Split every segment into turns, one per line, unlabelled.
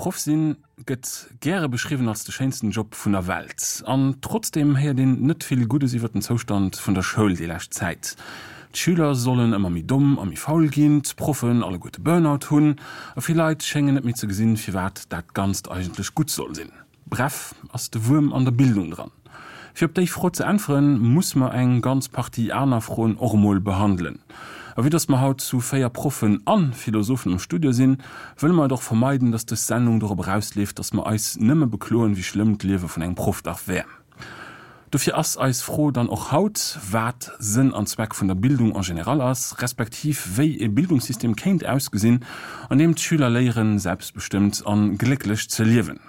Proff sinn gëtt gäre beschriwwen als de schéinsten Job vun der Welt. An trotzdeem héiert een net vill Guddes iwwer den Zoustand vun der Schoul déi lescht Zäit. D'Schüler sollen ëmmer méi domm a méi faul ginn, d'Proffen alleguerte Burnout hunn a vill Leit schéngen net méi ze gesinn, firwat dat Ganzt eigentlech gutt soll sinn. Bref, ass de Wuerm an der Bildung dran? Fir op déi Fro ze äntweren, muss mer eng ganz Partie aner Froen och emol behandelen. A vue dass mer haut zu 4 Proffen a Philosophen am Studio sinn, wëlle mer et och vermeiden, dass dës Sendung dorop erausleeft, dass mer eis nëmme bekloen, wéi schlëmm d'Liewe vun engem Proff dach wär. Dofir ass eis Fro dann och haut, wat Sënn an Zweck vun der Bildung en général ass, respektiv wéi e Bildungssystem kéint ausgesinn, an deem d'Schüler léieren, selbstbestëmmt an glécklech ze liewen.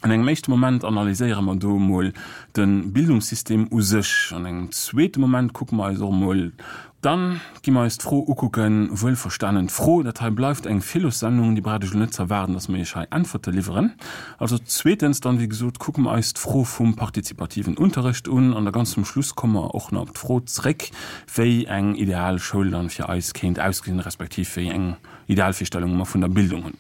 An engem éischte Moment analyséiere mer do emol de Bildungssystem u sech. An engem zweete Moment kucke mer eis och emol Dann gi mer eis d'Fro ukucken, wuelverstanen d'Fro, dat hei bleift eng Philossendung, déi braucht Iech elo net ze erwaarden, dass mer Iech hei Äntwerte liwweren. Also zweetens dann, wéi gesot, kucke mer eis d'Fro vum partizipativen Unterrecht un an da ganz zum Schluss komme mer och nach op d'Fro zréck, wéi eng ideal Schoul dann fir eis kéint ausgesinn, respektiv wéi eng Idealvirstellunge mer vun der Bildung hunn.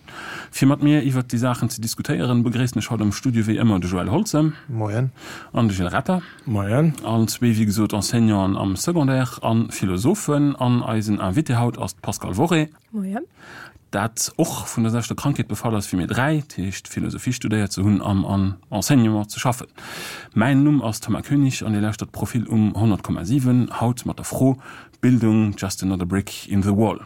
Fir mat mir iwwert déi Saachen ze diskutéieren, begréissen ech haut am Studio wéi ëmmer de Joël Holze.
Moien.
An de Gilles Retter.
Moien.
Allen zwee, wéi gesot, Enseignanten am Secondaire a Philosophen. An eisen Invité haut ass d'Pascale Worré.
Moien.
Dat och vun der selwechter Krankheet befall ass wéi mir dräi, dat heescht Philosophie studéiert ze hunn an am Enseignement ze schaffen. Mäin Numm ass Thomas Koenig an Dir lauschtert Profil um 100,7, haut mat der Fro, Bildung, just another brick in the wall?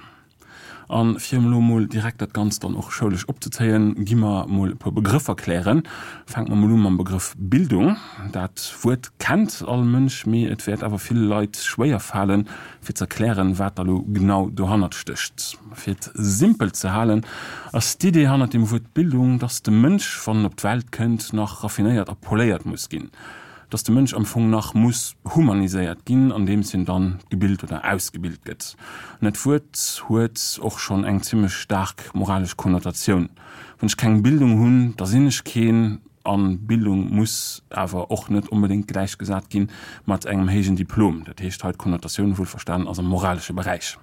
A fir elo mol direkt dat Ganzt dann och schoulesch opzezéien, gi mer mol e puer Begrëffer klären. Fänke mer mol u mam Begrëff Bildung. Dat Wuert kennt all Mënsch, mee et wäert awer ville Leit schwéier falen, fir z'erklären, wat da lo genau dohannert stécht. Fir et simpel ze halen, ass d'Idee hannert dem Wuert Bildung, dass de Mënsch, wann en op d'Welt kënnt, nach raffinéiert a poléiert muss ginn. Dass de Mënsch am Fong nach muss humaniséiert ginn, andeems hien dann gebilt oder ausgebilt gëtt. An dat Wuert huet och schonn eng zimmlech staark moralesch Konnotatioun. Wann ech keng Bildung hunn, da sinn ech keen. A Bildung muss awer och net onbedéngt gläichgesat gi mat engem héijen Diplom. Dat heescht hei, d'Konnotatioun, wuelverstanen, ass am moralesche Beräich.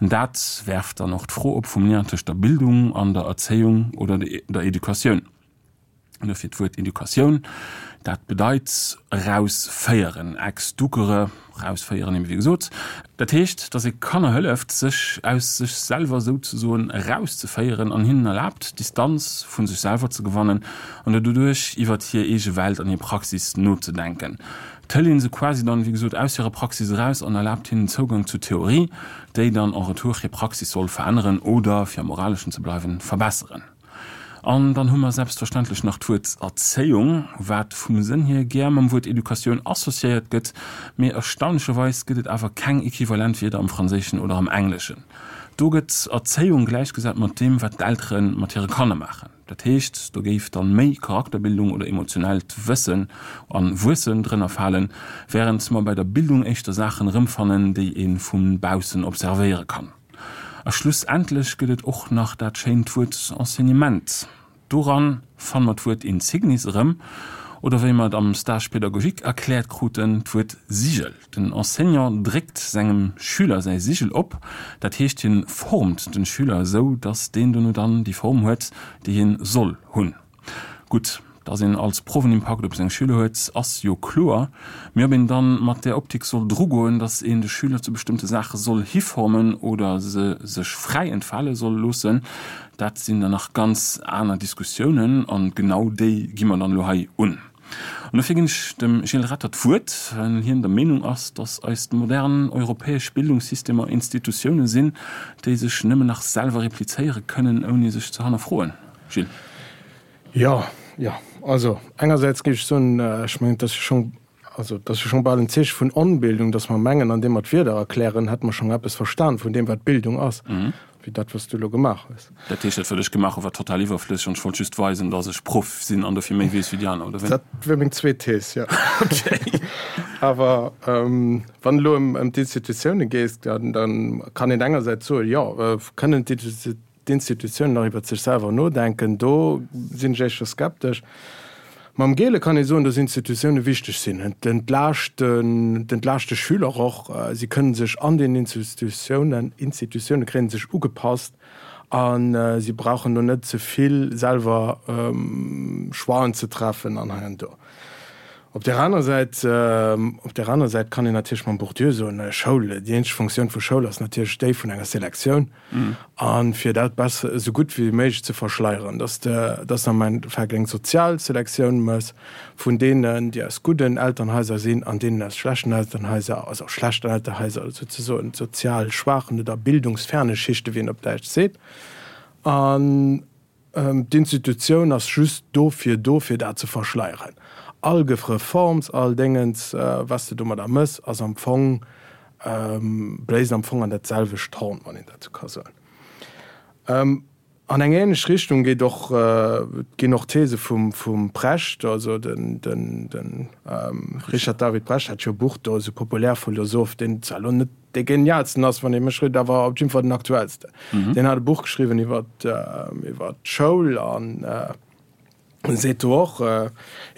An dat werft dann och d'Fro op vum Lien tëscht der Bildung an der Erzéiung oder der Educatioun. An dofir d'Wuert Educatioun, dat bedeit erausféieren, ex ducere, erausféieren, eben wéi gesot. Dat heescht, datt ee Kanner hëlleft, sech aus sech selwer souzesoen erauszeféieren an hinnen erlaabt, Distanz vu sech selwer ze gewannen an doduerch iwwert hir eege Welt an hir Praxis nozedenken. Et hëlt ee se quasi dann, wéi gesot, aus hirer Praxis eraus an erlaabt hinnen Zougang zur Theorie, déi dann en retour hir Praxis soll veränneren oder, fir am Moraleschen ze bleiwen, verbesseren. An dann hu mer selbstverständlech nach d'Wuert Erzéiung, wat vum Sënn hier gär mam Wuert Educatioun associéiert gëtt, mee erstaunlecherweis gëtt et awer keng equivalent Wierder am Franséischen oder am Engleschen. Do gëtt Erzéiung gläichgesat mat deem, wat d'Eltere mat hire Kanner maachen. Dat heescht, do géif dann méi Charakterbildung oder emotionellt Wëssen an Wuessen drënner falen, wärend mer bei der Bildung éischter Saachen erëmfannen, déi ee vu baussen observéiere kann. A schlussendlech gëtt et och nach dat schéint Wuert Enseignement. Doran fanne mer d'Wuert Insignis erëm, oder wéi mer et am Stage pédagogique erkläert kruten, d'Wuert Sigel. Den Enseignant dréckt sengem Schüler säi Sigel op, dat heescht hien formt den Schüler esou, dass deen dono dann déi Form huet, déi hien soll hunn. Gutt, dass een als Proff en Impakt op seng Schüler huet, ass jo kloer. Mee ob een dann mat där Optik soll drugoen, dass een de Schüler zu bestëmmte Saache soll hiformen oder se sech fräi entfale soll loossen, dat sinn dann nach ganz aner Diskussiounen an genau déi gi mer dann elo hei un. An dofir ginn ech dem Gilles Retter d'Wuert, well hien der Meenung ass, dass eis modern europäesch Bildungssystemer Institutioune sinn, déi sech nëmmen nach selwer replizéiere kënnen, ouni sech ze hannerfroen. Gilles.
Jo, jo. Also engersäits géif ech soen, ech mengen, et ass jo schonn, also et ass jo schonn bal en Zeeche vun Onbildung, datt mer mengen, andeem mer d'Wierder erklären, hätte mer schonn eppes verstan vun deem, wat Bildung ass, wéi dat, wat s du elo gemaach hues.
Dat heescht, dat, wat ech gemaach hu war total iwwerflësseg an ech wollt just weisen, datt ech Proff sinn an dofir méi weess wéi déi aner, oder wéi?
Dat wier meng zweet Thees, jo.
Okay.
Awer wann elo ëm d'Institutioune geet, da kann een engersäits soen, jo, kënnen d'Institutiounen, d'Institutiounen nach iwwert sech selwer nodenken, do sinn ech éischter skeptesch. Mam Gele kann ee soen, dass Institutioune wichteg sinn. Et entlaaschten, et entlaascht de Schüler och. Si kënnen sech an den Institutiounen, Institutioune kréien sech ugepasst. A si brauchen do net ze vill selwer Choixen ze treffen an hei an do. Op där aner Säit, op där aner Säit kann een natierlech mam Bourdieu soen, Schoul, déi eenzeg Funktioun vu Schoul ass natierlech déi vun enger Selektioun. A fir dat besser, esou gutt wéi méiglech ze verschleieren, dass de, dass de am Endeffekt eng sozial Selektioun méchs vun deenen, déi aus gudden Elternhaiser sinn an deenen aus schlechten Elternhaiser, also schlechten Elternhaiser souzesoen, sozial schwaachen oder bildungsferne Schichte, wéi een op Däitsch seet. An d'Institutioun ass just dofir do, fir dat ze verschleieren. All Reforms, all Déngens, wat s de domadder méchs, ass am Fong, bléist am Fong an dat selwecht Horn, wann een dat esou ka soen. An eng ähnlech Richtung geet och, ginn och d'These vum, vum Precht, also den, den, den Richard David Precht hat jo e Buch do, esou Populärphilosoph, deen zwar elo net dee genialsten ass, wann ee mech freet, awer op jidde Fall den aktuellsten. Deen hat e Buch geschriwwen iwwer, iwwer d'Schoul an seet do och,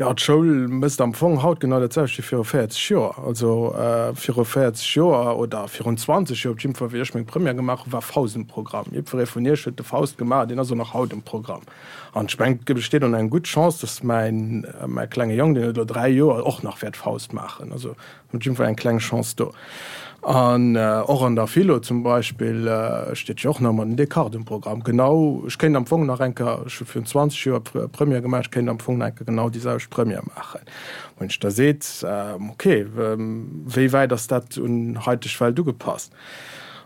jo d'Schoul mécht am Fong haut genau dat selwecht wéi viru 40 Joer. Also viru 40 Joer oder virun 20 Joer op jidde Fall, wéi ech meng Première gemaach hunn, war Faust um Programm. Jiddweree vun iech huet de Faust gemaach, deen ass och nach haut um Programm. An ech mengen, et besteet och nach eng gutt Chance, datt mäin, mäi klenge Jong, deen huet elo 3 Joer, och nach wäert Faust maachen. Also Op jidde Fall eng kleng Chance do. An och an der Philo zum Beispill steet jo och nach ëmmer den Descartes um Programm. Genau, ech kéint am Fong nach eng Kéier, ech hu virun 20 Joer Première gemaach, ech kéint am Fong nach eng Kéier genau déi selwecht Première maachen. Wou een sech da seet, ok, wéi wäit ass dat un haiteg Welt ugepasst?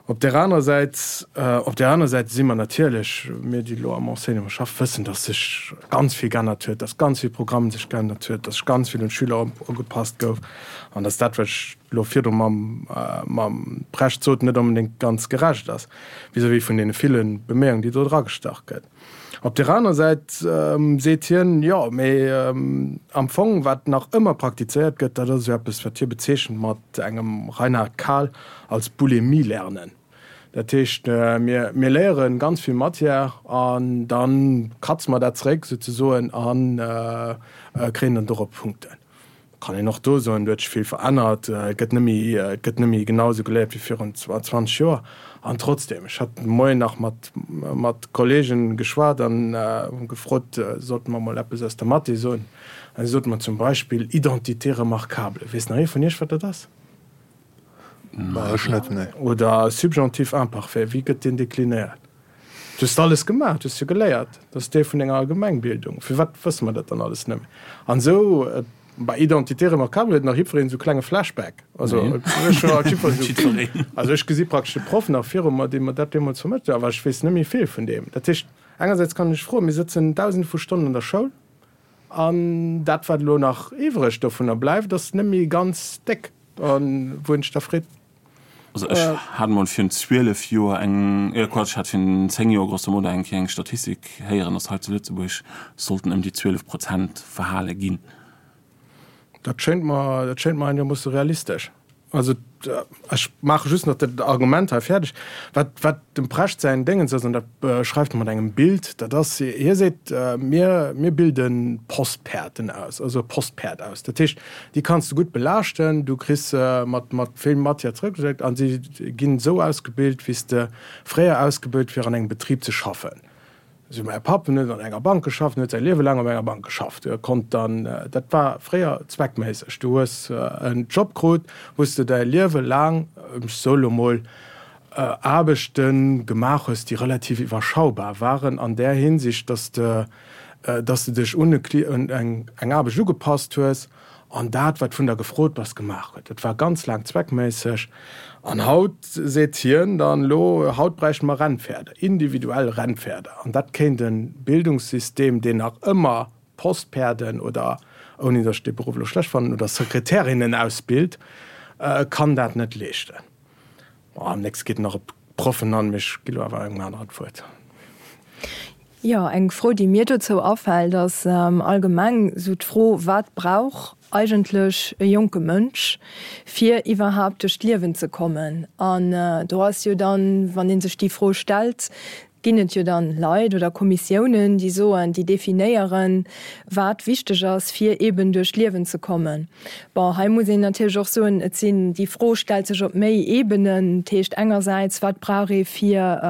Op där anerer Säit, op där anerer Säit si mer natierlech, mir déi elo am Enseignement schaffen, wëssen, dass sech ganz vill geännert huet, dass ganz vill Programm sech geännert huet, dass sech ganz vill un d'Schüler ugepasst gouf an dass dat, wat ech elo virdru mam, mam Precht sot, net onbedéngt ganz gerecht ass vis-à-vis vun deene ville Beméiungen, déi do dragestach gëtt. Op där anerer Säit seet hien, jo, mee am Fong, wat nach ëmmer praktizéiert gëtt, dat ass esou eppes, wat hie bezeechent mat engem Reinhard Kahl als Bulimie-Lernen. Dat heescht, mir, mir léiere ganz vill Matière an da kratze mer dat zeréck souzesoen a kréien dann dorop Punkten. Kann een och do soen, do huet sech vill verännert, et gëtt net méi, et gëtt net méi genau esou geléiert wéi virun 20 Joer. An trotzdem, ech hat de Moien nach mat, mat Kollegen geschwat an hu gefrot, sollte mer mol eppes aus der Mathé soen. An si sote mer zum Beispill Identité remarquable. Weess nach ee vun Iech, wat dat ass?
Ech net, nee.
Oder Subjonctif imparfait, wéi gëtt deen deklinéiert? Du hues alles gemaach, du hues jo geléiert, dat ass Deel vun denger Allgemengbildung. Firwat wësse mer dat dann alles net méi? An esou bei Identité remarquable huet nach jiddwereen esou klenge Flashback. Also ech hu halt jiddwer esou, also ech gesi praktesch de Proff nach viru mer, dee mer dat deemools vermëttelt huet, awer ech weess net méi vill vun deem. Dat heescht, engersäits kann ech froen, mir sëtzen Dausende vu Stonnen an der Schoul an dat wat elo nach iwwreg dovunner bleift, ass net méi ganz déck. A wou een sech da freet,
Also ech hat emol virun 12 Joer eng, äh Quatsch, ech hat virun 10 Joer grosso modo eng Kéier eng Statistik héieren, dass hei zu Lëtzebuerg sollten ëm déi 12 Prozent verhale ginn.
Dat schéint mer, dat schéint mer einegermoosse realistesch. Also ech maache just nach dat Argument hei fäerdeg, wat, wat dem Precht säin Déngens ass, an dat beschreift e mat engem Bild, dat ass, hie seet, mir, mir bilde Postpäerten aus, also e Postpäerd aus. Dat heescht, Déi kanns de gutt belaaschten, du kriss se mat mat vill Matière zrëckgeschéckt a si ginn esou ausgebilt, wéi s de fréier ausgebilt fir an engem Betrib ze schaffen. Esou mäi Papp, en huet an enger Bank geschafft, en huet säi Liewe laang op enger Bank geschafft. E konnt dann, dat war fréier zweckméisseg, du hues en Job krut, wou s de däi Liewe laang, ech soe lo mol, Aarbechte gemaach hues, déi relativ iwwerschaubar waren an där Hinsicht, dass de dass de dech un eng Aarbecht ugepasst hues an dat, wat vun der gefrot bass, gemaach huet. Dat war ganz laang zweckméisseg. An haut seet hien dann elo, haut bräichte mer Rennpferder, individuell Rennpferder. An dat kéint e Bildungssystem, deen nach ëmmer Postpäerden oder, ouni datt ech dee Beruff elo schlecht fannen, oder Sekretärinnen ausbilt, kann dat net leeschten. Am nächste geet nach op d'Proffen an, mee ech gi lo awer engem aneren d'Wuert.
Jo, eng Fro, déi mir dozou afält, ass allgemeng esou d'Fro, Wat brauch eigentlech e jonke Mënsch, fir iwwerhaapt duerch d'Liewen ze kommen? An do ass jo dann, wann ee sech déi Fro stellt, Ginn et jo dann Leit oder Kommissiounen, déi soen, déi definéieren, wat wichteg ass, fir eben duerch d'Liewen ze kommen. Bon, hei muss een natierlech och soen, et sinn, déi Fro stellt sech op méi Ebenen. Dat heescht engersäits, wat brauch ee fir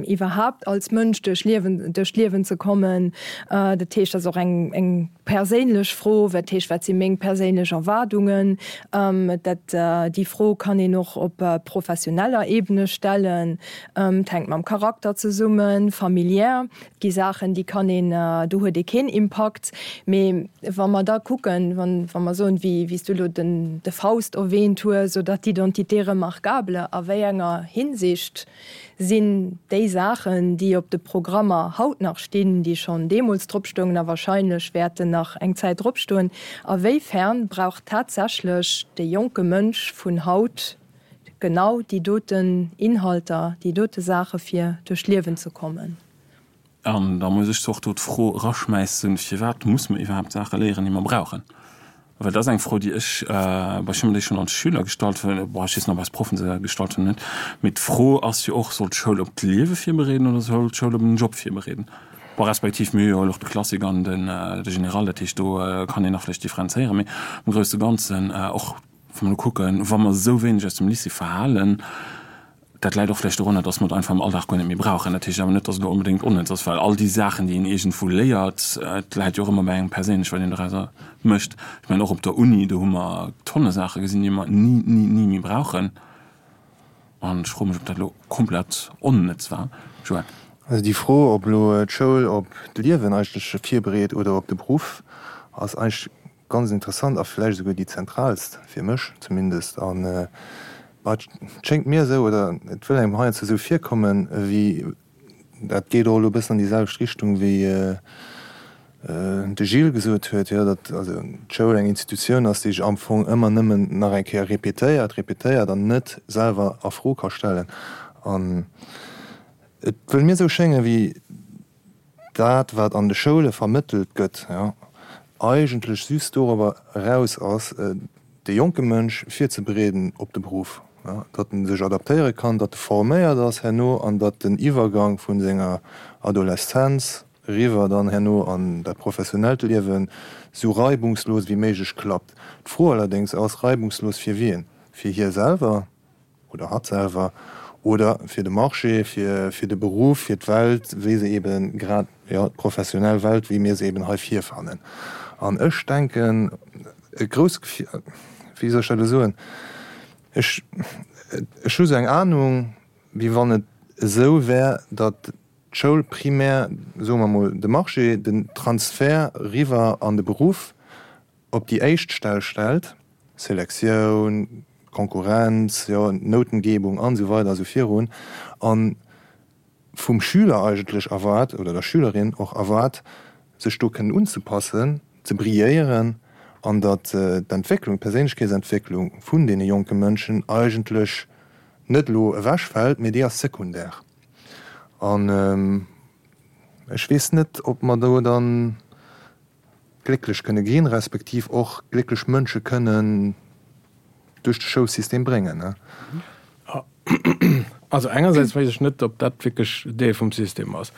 iwwerhaapt als Mënsch duerch Liewen, duerch d'Liewen ze kommen? Dat heescht, dat ass och eng, eng perséinlech Fro, wat heescht, wat si meng perséinlech Erwaardungen? Dat, déi Fro kann een och op professioneller Ebene stellen. Et hänkt mam Charakter zesummen, familiär. Et gi Saachen, déi kann een, do huet ee keen Impakt. Mee wa mer da kucken, wann, wa mer soen, wéi, wéi s du elo den, de Faust erwähnt hues oder d'Identité remarquable, a wéi enger Hinsicht sinn déi Saachen, déi op de Programmer haut nach stinn, déi schonn deemools drop stoungen a wahrscheinlech wäerten nach eng Zäit drop stoen, a wéi fern brauch tatsächlech de jonke Mënsch vun haut genau déi doten Inhalter, déi dote Saache fir duerch d'Liewen ze kommen.
An da muss ech zwar och do d'Fro eraschmäissen, Firwat muss mer iwwerhaapt Saache léieren, déi mer brauchen? Well dat ass eng Fro, déi ech, bon, ech hu mer déi schonn als Schüler gestallt, bon, ech weess net, ob eis Proffen se gestallt hunn oder net, mee d'Fro ass jo och, Soll d'Schoul op d'Liewe virbereeden oder soll d'Schoul op en Job virbereeden? Bon, respektiv mir hu jo och de Classique an de Général, dat heescht, do kann een nach vläicht differenzéieren, mee am grousse Ganzen och, Wa mer elo kucken, wa mer esou wéineg aus dem Lycée verhalen, dat läit och vläicht dorunner, dass mer et einfach am Alldag guer net méi brauchen. Dat heescht awer net, dass et elo onbedéngt onnëtz ass, well all déi Saachen, déi een iergendwou léiert, et läit jo och ëmmer bei engem perséinlech, wat een dorauser mécht. Ech mengen, och op der Uni, do hu mer tonne Saache gesinn, déi mer ni, ni, ni méi brauchen. An ech froe mech, ob dat elo komplett onnëtz war. Joël.
Also déi Fro, ob elo d'Schoul op d'Liewen eigentlech virbereet oder op de Beruff, ass eigentlech Ganz interessant a vläicht esouguer déi zentraalst, fir mech zumindest. An et schéngt mir esou, oder et wëll engem heiansdo esou virkommen, ewéi, dat geet och elo e bëssen an déi selwecht Richtung wéi de Gilles gesot huet, jo, datt also d'Schoul eng Institutioun ass, déi sech am Fong ëmmer nëmmen nach eng Kéier répétéiert, répétéiert an net selwer a Fro ka stellen. An et wëll mir esou schéngen, wéi dat, wat an de Schoule vermëttelt gëtt, jo, eigentlech just dorobber eraus ass, de jonke Mënsch virzebereeden op de Beruff, jo, datt en sech adaptéiere kann, datt e forméiert ass herno an datt den Iwwergang vu senger Adoleszenz eriwwer dann herno an dat professionellt Liewen esou reibungslos wéi méiglech klappt. D'Fro allerdéngs ass, reibungslos fir wien? Fir hie selwer? oder hatt selwer, oder fir de Marché, fir, fir de Beruff, fir d'Welt, wéi se eben grad, jo, d'professionell Welt, wéi mir se eben hei virfannen. An ech denken, e grousse, wéi soll ech dat elo soen, ech, ech hu sou eng Ahnung, wéi wann et esou wär, datt d'Schoul primär, soe mer emol, de Marché, den Transfert riwwer an de Beruff op déi éischt Stell stellt, Selektioun, Konkurrenz, jo, Noutengebung an esou weider a sou virun, a vum Schüler eigentlech erwaart, oder der Schülerin och erwaart, sech do kënnen unzepassen, ze brilléieren, an datt d'Entwécklung, d'Perséinlechkeetsentwécklung vun deene jonke Mënschen eigentlech net elo ewechfält, mee déi ass sekundär. An ech weess net, ob mer do dann glécklech kënne ginn, respektiv och glécklech Mënsche kënnen duerch de Schoulsystem bréngen.
Also engersäits weess ech net, ob dat wierklech Deel vum System ass.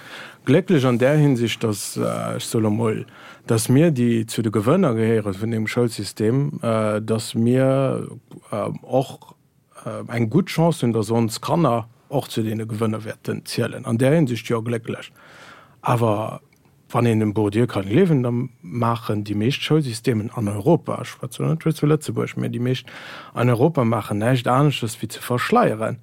Glécklech an där Hinsicht, datt, ech soe lo mol, datt mir, déi zu de Gewënner gehéiere vun deem Schoulsystem, datt mir och eng gutt Chance hunn, datt ons Kanner och zu deene Gewënner wäerten zielen. An där Hinsicht jo, glécklech. Awer Wann een dem Bourdieu kann gleewen, da maachen déi meescht Schoulsystemen an Europa, ech schwätze elo net just vu Lëtzebuerg, mä déi meescht an Europa maachen näischt aneschters wéi ze verschleieren,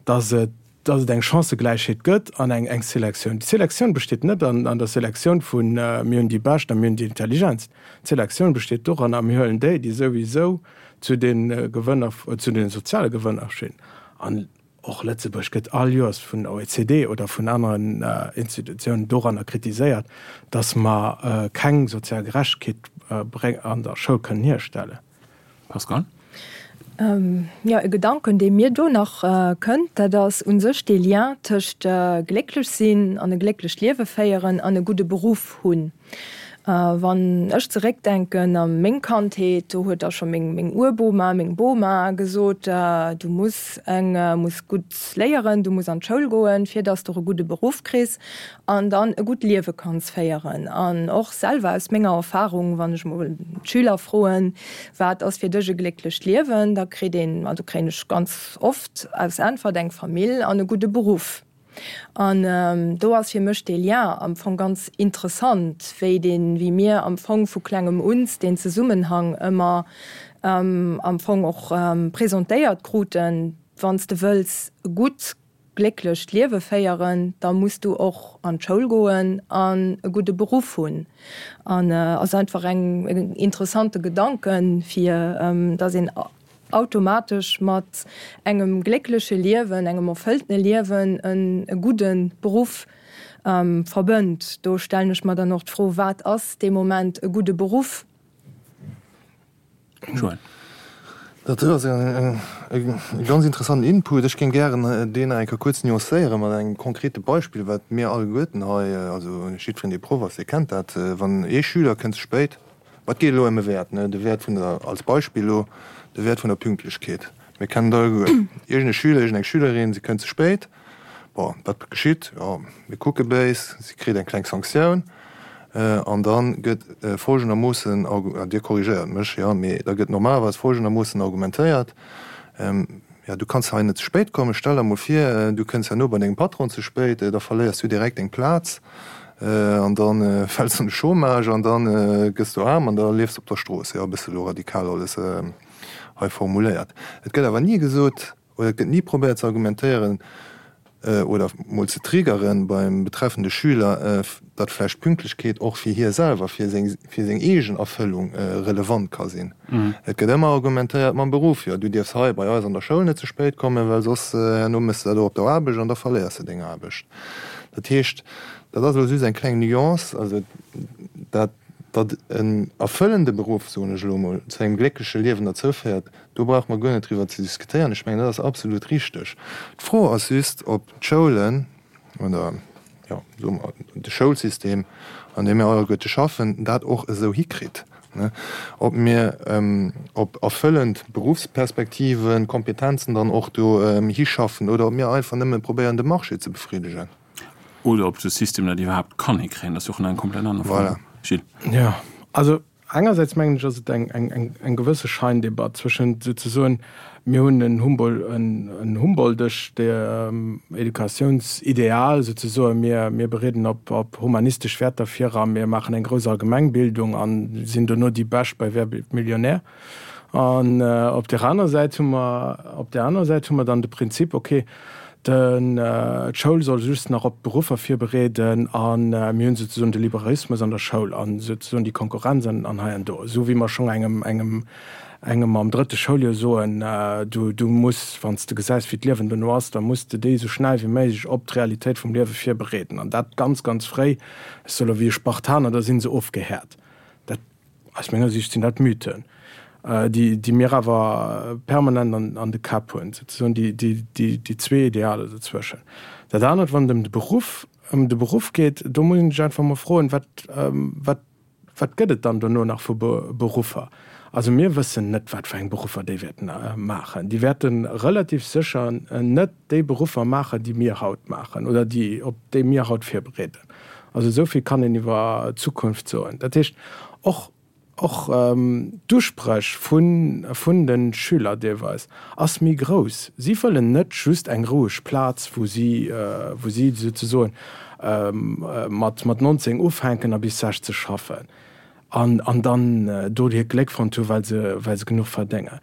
dass et, dass et eng Chancëgläichheet gëtt an eng, eng Selektioun. Déi Selektioun besteet net an, an der Selektioun vu mir hunn déi Bescht a mir hunn déi Intelligentst. D'Selektioun besteet doranner, mir huelen déi, déi souwisou zu de Gewënner, zu de soziale Gewënner stinn. An Och Lëtzebuerg gëtt all Joers vun der OECD oder vun aneren Institutiounen doranner kritiséiert, datt mer keng sozial Gerechtegkeet an der Schoul kënnen hierstellen.
Pascal?
Jo, e Gedanken, dee mir do nach kënnt, dat ass u sech dee Lien tëscht glécklech sinn an e glécklecht Liewe féieren an e gudde Beruff hunn. Wann ech zeréckdenken a meng Kandheet, do huet da scho meng meng Urboma, meng Boma gesot, du muss eng muss gutt léieren, du muss an d'Schoul goen, fir dass de och e gudde Beruff kriss an dann e gutt Liewe kanns féieren. An och selwer aus menger Erfahrung, wann ech mol d'Schüler froen, wat ass fir dech e glécklecht Liewen, da kritt een, also kréien ech ganz oft als Äntwert eng Famill an e gudde Beruff. An do ass fir mech dee Lien am Fong ganz interessant, wéi deen, wéi mir am Fong vu klengem uns deen Zesummenhang ëmmer am Fong och presentéiert kruten, Wann s de wëlls e gutt, glécklecht Liewe féieren, da muss du och an d'Schoul goen an e gudde Beruff hunn. An ass einfach eng, en interessante Gedanken, fir dass een automatesch mat engem gléckleche Liewen, engem erfëlltene Liewen e gudde Beruff verbënnt. Do stellen ech mer dann och d'Fro, Wat ass dee Moment e gudde Beruff?
Joël. Dat ass e ganz interessanten Input. Ech géing gären deen nach eng Kéier kuerz nuancéiere mat engem konkrete Beispill, wat mir alleguerten hei, also jiddwereen, dee Proff ass, dee kennt dat, Wann ee Schüler kënnt ze spéit, Ma et geet elo ëm e Wäert, ne, de Wäert vun der, als Beispill elo, de Wäert vun der Pünktlechkeet. Mir kennen et alleguer, iergend e Schüler, iergend eng Schülerin, si kënnt ze spéit. Bon, wat geschitt? Jo, mir kucke béis, si kritt eng kleng Sanktioun an da gëtt folgendermoossen, Dir korrigéiert mech, jo, mee da gëtt normalerweis folgendermoossen argumentéiert, Jo, du kanns hei net ze spéit kommen. Stell der mol vir, du kënns herno bei dengem Patron ze spéit, da verléiers du direkt deng Plaz an da fäls de an de Chômage an da gëss du aarm an da liefs de op der Strooss. Jo, e bësse lo radikal alles hei formuléiert. Et gëtt awer ni gesot oder et gëtt ni probéiert ze argumentéieren, oder mol ze triggeren beim betreffende Schüler, datt vläicht Pünktlechkeet och fir hie selwer, fir seng, fir seng eegen Erfëllung relevant ka sinn. Et gëtt ëmmer argumentéiert mam Beruff, jo du dierfs hei bei eis an der Schoul net ze spéit kommen, well soss herno méchs de dat och op der Aarbecht an da verléiers de deng Aarbecht. Dat heescht, dat ass elo just eng kleng Nuance, also dat, datt en erfëllende Beruff, soen ech elo mol, zu engem gléckleche Liewen derzou féiert, Do brauche mer guer net driwwer ze diskutéieren. Ech mengen, dat ass absolut richteg. D'Fro ass just, ob d'Schoulen oder, jo, soe mer, de Schoulsystem, an deem mir alleguerte schaffen, dat och esou hikritt, ob mir op erfëllend Beruffsperspektiven, Kompetenzen dann och do hischaffen oder ob mir einfach nëmme probéieren, de Marché ze befriddegen.
Oder ob de System dat iwwerhaapt kann hikréien. Dat ass jo och nach eng komplett aner Fro.
Voilà.
Gilles.
Jo, also Engersäits mengen ech, ass et eng gewësse Scheindebatt zwëschent souzesoen, mir hunn en humboldtescht Educatiounsideal souzesoen, mir bereeden op humanistesch Wäerter vir a mir maachen eng grouss Allgemengbildung a sinn dono déi Bescht bei Wer wird Millionär? An op där aner Säit hu mer, op där aner Säit hu mer dann de Prinzip, okay, D'Schoul soll just nach op d'Beruffer virbereeden a mir hunn souzesoen de Liberalismus an der Schoul a souzesoen déi Konkurrenz an hei an do, esou wéi mer schonn engem, engem, engem am drëtte Schouljoer soen, du, du muss, wann s de gesäis, wéi d'Liewen dono ass, da muss de déi esou schnell wéi méiglech op d'Realitéit vum Liewe virbereeden an dat ganz, ganz fréi. Ech soe lo wéi e Spartaner, da si se ofgehäert. Dat. Aus menger Sicht sinn dat Mythen, déi mir awer permanent an de Käpp hunn, souzesoen déi zwee Idealer dozwëschen. Dat anert, wann et ëm de Beruff, ëm de Beruff geet, do muss een sech einfach emol froen, wat, wat, wat gëtt et dann dono nach vu Beruffer? Also mir wëssen net, wat fir eng Beruffer déi wäerten maachen. Déi wäerte relativ sécher net déi Beruffer maachen, déi mir haut maachen oder déi, op déi mir haut virbereeden. Also esou vill kann een iwwer d'Zukunft soen. Dat heescht, och, och d'Uspréch vun, vun de Schüler deelweis ass méi grouss. Si wëllen net just eng roueg Plaz, wou si, wou si souzesoen mat, mat 19 ufänken a bis 60 schaffen an, an dann do hiert Gléck fonnt hu well se, well se genuch verdéngen.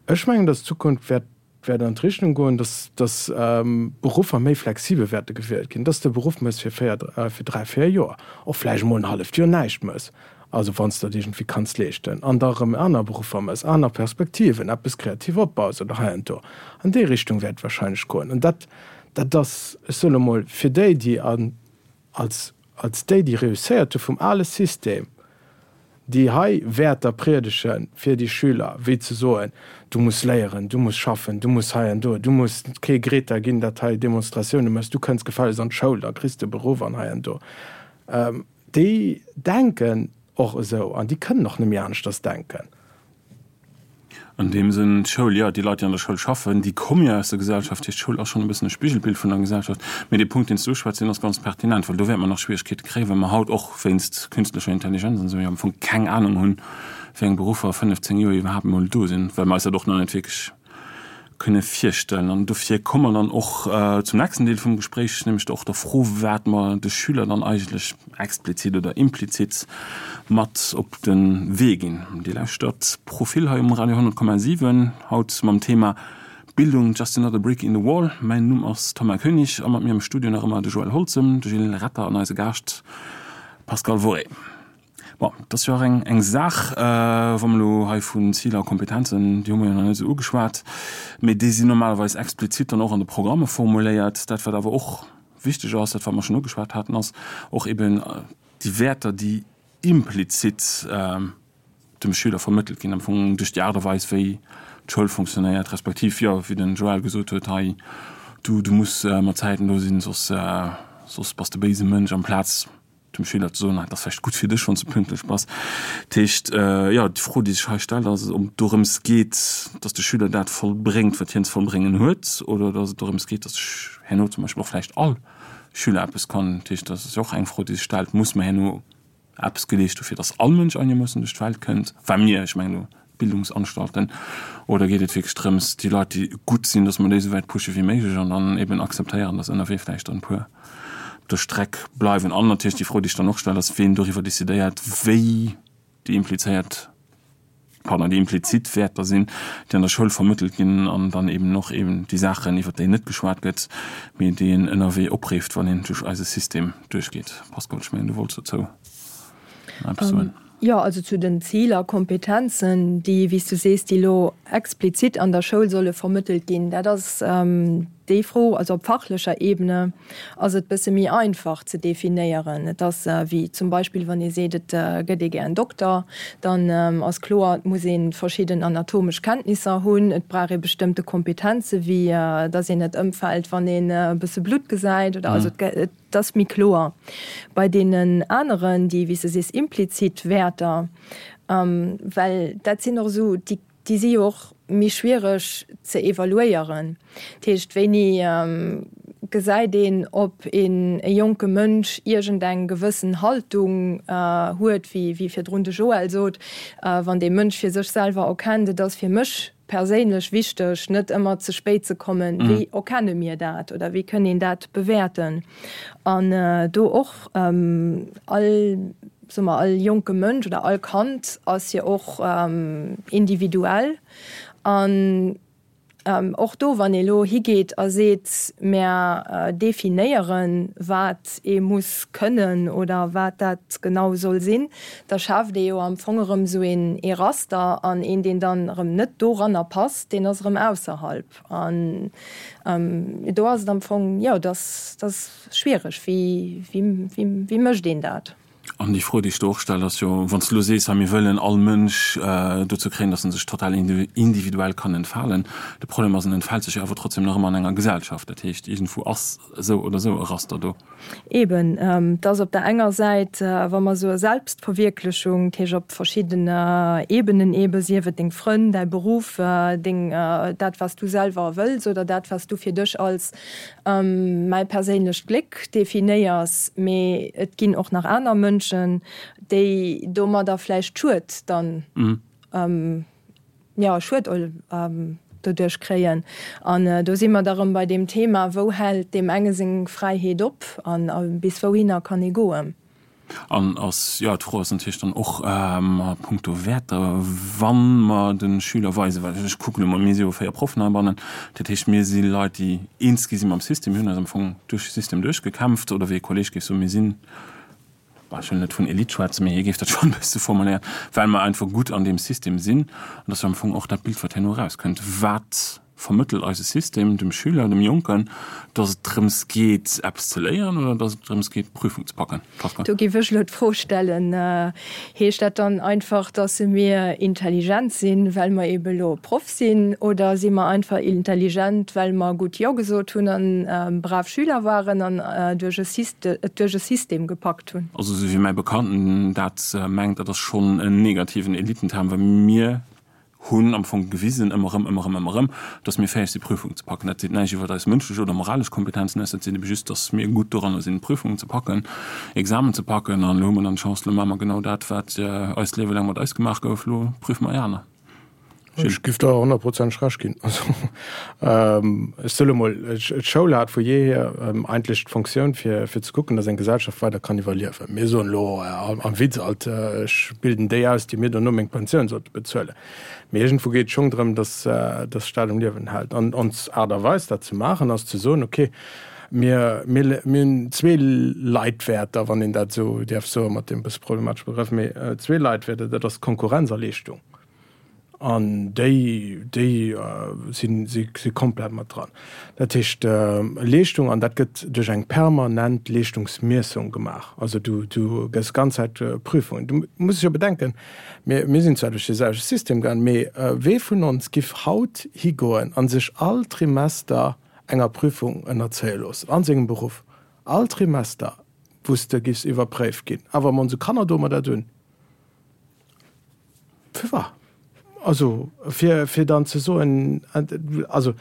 Ech mengen, datt d'Zukunft wäert wäert an d'Richtung goen, dass, dass Beruffer méi flexibel wäerte gewielt ginn, dass de Beruff mëss fir véier, fir dräi, véier Joer, och vläicht emol en halleft Joer näischt mëss, also wann s de dat iergendwéi kanns leeschten, an da erëm aner Beruffer mëss, aner Perspektiven, eppes kreativ opbaus oder hei an do. An déi Richtung wäert et wahrscheinlech goen. An dat, dat ass, ech soen emol, fir déi, déi an, als, als déi, déi reusséiert hu vum ale System, déi hei Wäerter priedege fir déi Schüler, wéi ze soen, du muss léieren, du muss schaffen, du muss hei an do, du muss kee Greta ginn, dat hei Demonstratioune mécht, du kënns gefällegst an d'Schoul, da kriss de e Beruff an hei an do, déi denken. och esou an déi kënnen och net méi aneschters denken.
An deem Sënn, d'Schoul, jo, déi Leit, déi an der Schoul schaffen, déi komme jo aus der Gesellschaft. Dat heescht, d'Schoul ass schonn e bëssen e Spigelbild vun der Gesellschaft. Mee dee Punkt, deen s du uschwätz, deen ass ganz pertinent, well do wäerte mer nach Schwieregkeete kréien, well mer haut och wéinst künstlecher Intelligenz an esou jo am Fong keng Anung hunn, wéi eng Beruffer a 15 Joer iwwerhaapt emol do sinn, well mer eis dat och nach net wierklech kënne virstellen. An dofir komme mer dann och zum nächsten Deel vum Gespréich, nämlech och der Fro, wat mer de Schüler dann eigentlech explizit oder implizit mat op de Wee ginn. Dir lauschtert Profil hei um Radio 100,7, haut mam Thema Bildung, just another brick in the wall. Mäin Numm ass Thomas Koenig a mat mir am Studio nach ëmmer de Joël Holzem, de Gilles Retter an eise Gaascht Pascal Worré. Bon, et ass jo och eng, eng Saach, wa mer elo hei vun Ziler a Kompetenzen, déi hu mer jo nach net esou ugeschwat, mee déi sinn normalerweis explizit dann och an de Programme formuléiert. Dat, wat awer och wichteg ass, dat, wat mer schonn ugeschwat haten, ass och eben déi Wäerter, déi implizit dem Schüler vermëttelt ginn, am Fong duerch déi Aart a Weis, wéi d'Schoul fonctionnéiert, respektiv, jo, wéi den Joël gesot huet, hei, du, du muss mat Zäiten do sinn, soss, soss bass de béise Mënsch, amplaz dem Schüler ze soen, et ass vläicht gutt fir dech, wann s de pünktlech bass. Dat heescht, jo, déi Fro, déi sech hei stellt, ass, ob et dorëms geet, datt de Schüler dat vollbréngt, wat hien ze vollbréngen huet, oder datt et dorëms geet, datt herno zum Beispill och vläicht all Schüler eppes kann. Dat heescht, dat ass jo och eng Fro, déi sech stellt, Muss mer herno eppes geleescht hu fir datt all Mënsch einermoossen duerch d'Welt kënnt? Well mir, ech mengen elo d'Bildungsanstalten, oder geet et wierklech drëms, déi Leit, déi gutt sinn, datt mer déi esou wäit pushe wéi méiglech an dann eben akzeptéieren, datt ënnerwee vläicht dann e puer op der Streck bleiwen? An natierlech déi Fro, déi ech dann och stellen, ass, ween doriwwer decidéiert, wéi déi implizéiert, pardon, déi implizit Wäerter sinn, déi an der Schoul vermëttelt ginn an dann eben och eben déi Saachen, iwwert déi net geschwat gëtt, mee déi een ënnerwee opreeft, wann een duerch eise System duerchgeet. Pascal, ech mengen, du wollts dozou nach eppes soen.
Jo, also zu den Ziler, Kompetenzen, déi, wéi s du sees, déi elo explizit an der Schoul solle vermëttelt ginn, dat ass déi Fro. Also op fachlecher Ebene ass et bësse méi einfach ze definéieren. Et ass wéi zum Beispill, wann ee seet, et gëtt ee gär en Dokter, dann ass kloer, et muss ee verschidden anatomesch Kenntnisser hunn, et brauch ee bestëmmte Kompetenze wéi datt een net ëmfält, wann een e bësse Blutt gesäit oder also et Et ass méi kloer bei deenen aneren, déi, wéi s de sees, implizit Wäerter, well dat sinn och esou, déi, déi si jo och méi schwiereg ze evaluéieren. Dat heescht, wéini gesäit een, ob een e jonke Mënsch iergendeng gewëssen Haltung huet, wéi, wéi virdrun de Joël sot, wann dee Mënsch fir sech selwer erkennt, et ass fir mech perséinlech wichteg, net ëmmer ze spéit ze kommen. Wéi erkenne mir dat oder wéi kënn een dat bewäerten? An do och all, soe mer, all jonke Mënsch oder all Kand ass jo och individuell. An och do, wann ee lo higeet a seet, mär definéieren, wat ee muss kënnen oder wat dat genau soll sinn, da schaaft ee jo am Fong erëm esou een ee Raster an een, deen dann erëm net doranner passt, deen ass erëm ausserhalb. An do ass et am Fong, jo, dat ass schwiereg. Wéi, wéi, wéi mécht een dat?
An déi Fro, déi ech do och stellen, ass jo, wann s de elo sees, hei mir wëllen all Mënsch dozou kréien, datt en sech total individuell kann entfalen. De Problem ass, en entfält sech jo awer trotzdem nach ëmmer an enger Gesellschaft. Dat heescht, iergendwou ass esou oder esou e Raster do.
Eben, et ass op der enger Säit, wa mer soe Selbstverwierklechung, dat heescht op verschidden Ebenen ebe, sief et deng Frënn, däi Beruff, deng, dat wat s du selwer wëlls oder dat wat s du fir dech als mäi perséinlecht Gléck definéiers, mee et ginn och nach aner Mënschen, déi domadder vläicht Schued dann jo, Schued doduerch kréien. An do si mer da rëm bei deem Thema, wou hält deem enge seng Fräiheet op an bis wouhinner kann ee goen?
An ass, jo, d'Fro ass natierlech dann och a puncto Wäerter, wa mer de Schüler weisen, well ech kucken elo mol, mir si jo 4 Proffen heibannen, dat heescht, mir si Leit, déi eens gi si mam System, mir hunn eis am Fong duerch de System duerchgekämpft, oder wéi e Kolleeg géif soen, mir sinn, Bon, ech wëll net vun Elite schwätzen, mee hie géif dat schonn e bësse formuléieren, well mer einfach gutt an deem System sinn. An dat ass jo am Fong och dat Bild, wat herno erauskënnt. Wat. Vermëttelt eise System dem Schüler, dem Jonken, dass et drëms geet, eppes ze léieren oder dass et drëms geet, d'Prüfung ze packen?
Pascal. Do géif ech elo d'Fro stellen, Heescht dat dann einfach, dass mir intelligent sinn, well mer eebe elo Proff sinn, oder si mer einfach intelligent, well mer gutt Jo gesot hunn an brav Schüler waren an duerch e et duerch e System gepackt hunn?
Also esou wéi mäi Bekannten dat mengt, dat ass schonn en negativen Elitenterm, well mir hunn am Fong gewisen, ëmmer erëm, ëmmer erëm, ëmmer erëm, dass mir fäeg si Prüfungen ze packen. Dat seet näischt iwwert eis mënschlech oder moralesch Kompetenzen aus, dat seet ebe just, dass mir gutt doranner sinn, Prüfungen ze packen, Examen ze packen. An elo hu mer dann d'Chance, elo maache mer genau dat, wat eist Liewe laang mat eis gemaach gouf, elo prüfe mer déi aner.
Gilles. Ech giff der honnertprozenteg Recht ginn. Also, ech soe lo mol, d'Schoul hat vu jeehier eigentlech d'Fonctioun, fir ze kucken, dass eng Gesellschaft weider kann iwwerliewen. Mir soen elo am Witz alt, ech bilden déi aus, déi mir dono meng Pensioun sollte bezuelen. Mee iergendwou geet et schonn drëm, dass de Staat um Liewen hält. An ons Aart a Weis, dat ze maachen, ass ze soen, okay, mir hunn zwee Leitwäerter, wann een dat esou däerf soen, mat deem e bësse problematesche Begrëff, mee zwee Leitwäerter, dat ass Konkurrenz a Leeschtung. An déi, déi sinn, si si komplett mat dran. Dat heescht, Leeschtung, an dat gëtt duerch eng permanent Leeschtungsmiessung gemaach. Also du, du gëss ganz Zäit Prüfungen. Du muss jo bedenken, mir, mir sinn zwar duerch dee selwechte System gaangen, mee wee vun ons giff haut higoen a sech all Trimester enger Prüfung ënnerzéie loossen an sengem Beruff? All Trimester, wou s de giffs iwwerpréift ginn. Awer mat onse Kanner doe mer dat un. Firwat? Also, fir, fir dann ze soen, also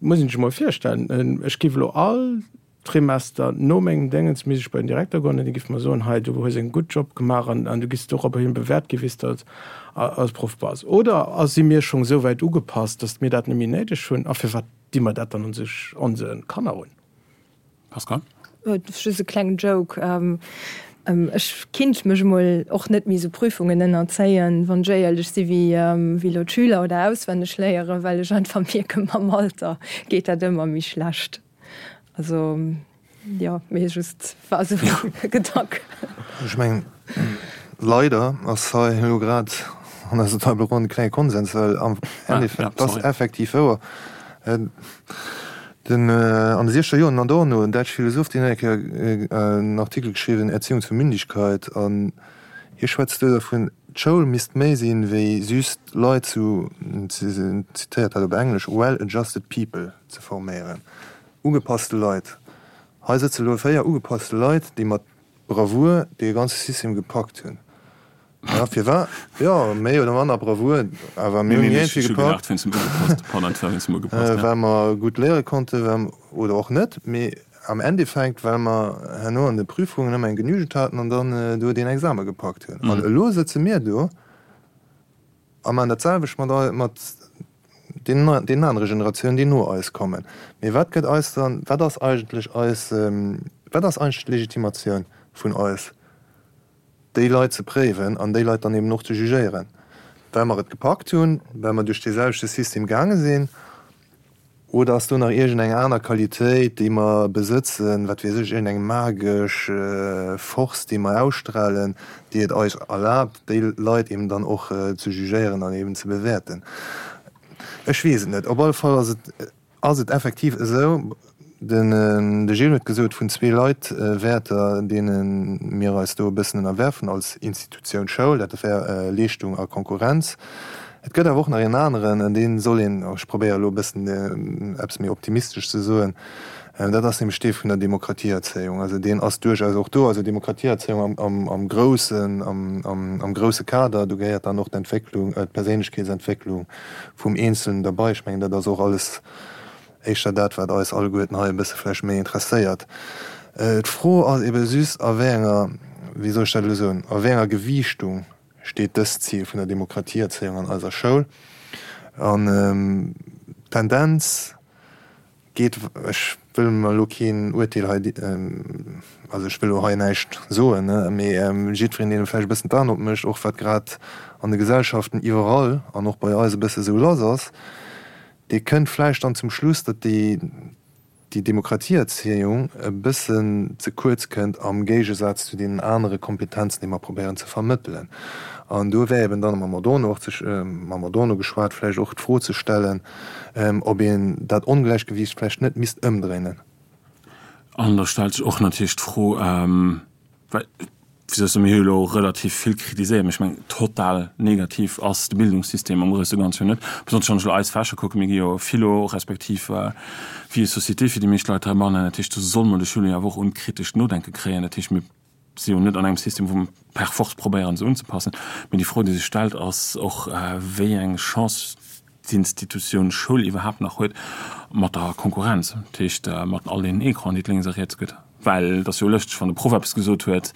muss een sech emol virstellen, ech géif elo all Trimester no mengem Déngens misst ech bei den Direkter goen an dee géif mer soen, hei du hues en gutt Job gemaach an an du giss doropperhin bewäert gi wéi s de als als Proff bass. Oder a si mir schonn esou wäit ugepasst, datt mir dat net méi néideg hunn? A firwat di mer dat dann onse onse Kanner un?
Pascal?
Just e klengen Joke. Ech kinnt mech emol och net méi esou Prüfungen ënnerzéien, wann ech éierlech si, wéi elo d'Schüler oder auswenneg léieren, well ech einfach mierken, mam Alter geet dat ëmmer méi schlecht. Also jo, mee just war esou e Gedank.
Ech mengen, leider ass hei elo grad an eiser Table ronde e klenge Konsens, well am Endeffekt ass effektiv wouer, Den, an de siechzeger Joren, Adorno, en däitsche Philosoph, deen huet eng Kéier en Artikel geschriwwen, Erziehung zur Mündigkeit, an hie schwätzt do dervun, d'Schoul misst méi sinn, wéi just Leit zu, en zitéiert dat op Englesch, well adjusted people ze forméieren, ugepasste Leit. Hei sëtze lo 4 ugepasste Leit, déi mat Bravour dee ganze System gepackt hunn. Ja, firwat? Jo, méi oder manner Bravour, awer mir hunn iergendwéi gepackt, well mer gutt léiere konnten, oder och net, mee am Endeffekt, well mer herno an de Prüfungen ëmmer eng Genügend haten an dann do deen Exame gepackt hunn. An elo sëtze mir do a maachen dat selwecht mat, mat deenen anere Generatiounen, déi no eis kommen. Mee wat gëtt eis dann, wat ass eigentlech eis, wat ass eigentlech d'Legitimatioun vun eis, déi Leit ze préiwen an déi Leit dann eben och ze jugéieren, well mer et gepackt hunn, well mer duerch dee selwechte System gaange sinn? Oder ass do nach iergend eng aner Qualitéit, déi mer besëtzen, wat weess ech, iergend eng magesch Force, déi mer ausstrahlen, déi et eis erlaabt, déi Leit eben dann och ze jugéieren an eben ze bewäerten? Ech weess et net. Op alle Fall ass et ass et effektiv esou, den de Gilles huet gesot, vun zwee Leitwäerter, deene mir eis do e bëssen ënnerwerfen als Institutioun Schoul, dat wär Leeschtung a Konkurrenz. Et gëtt awer och nach een aneren, an dee soll een, ech probéiere elo e bëssen eppes méi optimistesch ze soen, dat ass nämlech dee vun der Demokratieerzéiung. Also deen ass duerchaus och do. Also Demokratieerzéiung am groussen, am grousse Kader, do gehéiert dann och d'Entwécklung, d'Perséinlechkeetsentwécklung vum Eenzelnen derbei. Ech mengen, dat ass och alles éischter dat, wat eis alleguerten hei e bësse vläicht méi interesséiert. D'Fro ass ebe just, a wéi enger, wéi soll ech dat elo soen, a wéi enger Gewiichtung steet dëst Zil vun der Demokratieerzéiung an eiser Schoul. An d'Tendenz geet, ech wëll mer elo keen Uerteel hei, also ech wëll elo hei näischt soen, mee jiddwereen, deen vläicht e bëssen d'Aen opmécht, och wat grad an de Gesellschaften iwwerall an och bei eis e bësse sou lass ass, dee kënnt vläicht dann zum Schluss, datt déi. déi Demokratieerzéiung e bëssen ze kuerz kënnt am Géigesaz zu deenen anere Kompetenzen, déi mer probéieren ze vermëttelen. An do wär eben dann mam Adorno och ze, mam Adorno geschwat, vläicht och d'Fro ze stellen, ob een dat Ongläichgewiicht vläicht net misst ëmdréinen.
An da stellt sech och natierlech d'Fro, well, wéi soll ech soen, mir hu jo elo relativ vill kritiséiert, mä ech mengen, total negativ ass de Bildungssystem am grousse Ganze jo net. Besonnesch wann ech elo eis Fächer kucken, mir gi jo Philo respektiv Vie et société fir déi meescht Leit heibannen. Dat heescht, do soll mer de Schüler jo awer och un d'kritescht Nodenke kréien. Dat heescht, mir si jo net an engem System, wou mer per force probéieren, se unzepassen. Mee déi Fro, déi sech stellt, ass och, wéi eng Chance d'Institutioun Schoul iwwerhaapt nach huet mat der Konkurrenz, dat heescht mat all deenen Ecranen, déi et lénks a riets gëtt. Well et ass jo lëschteg, wann de Proff eppes gesot huet,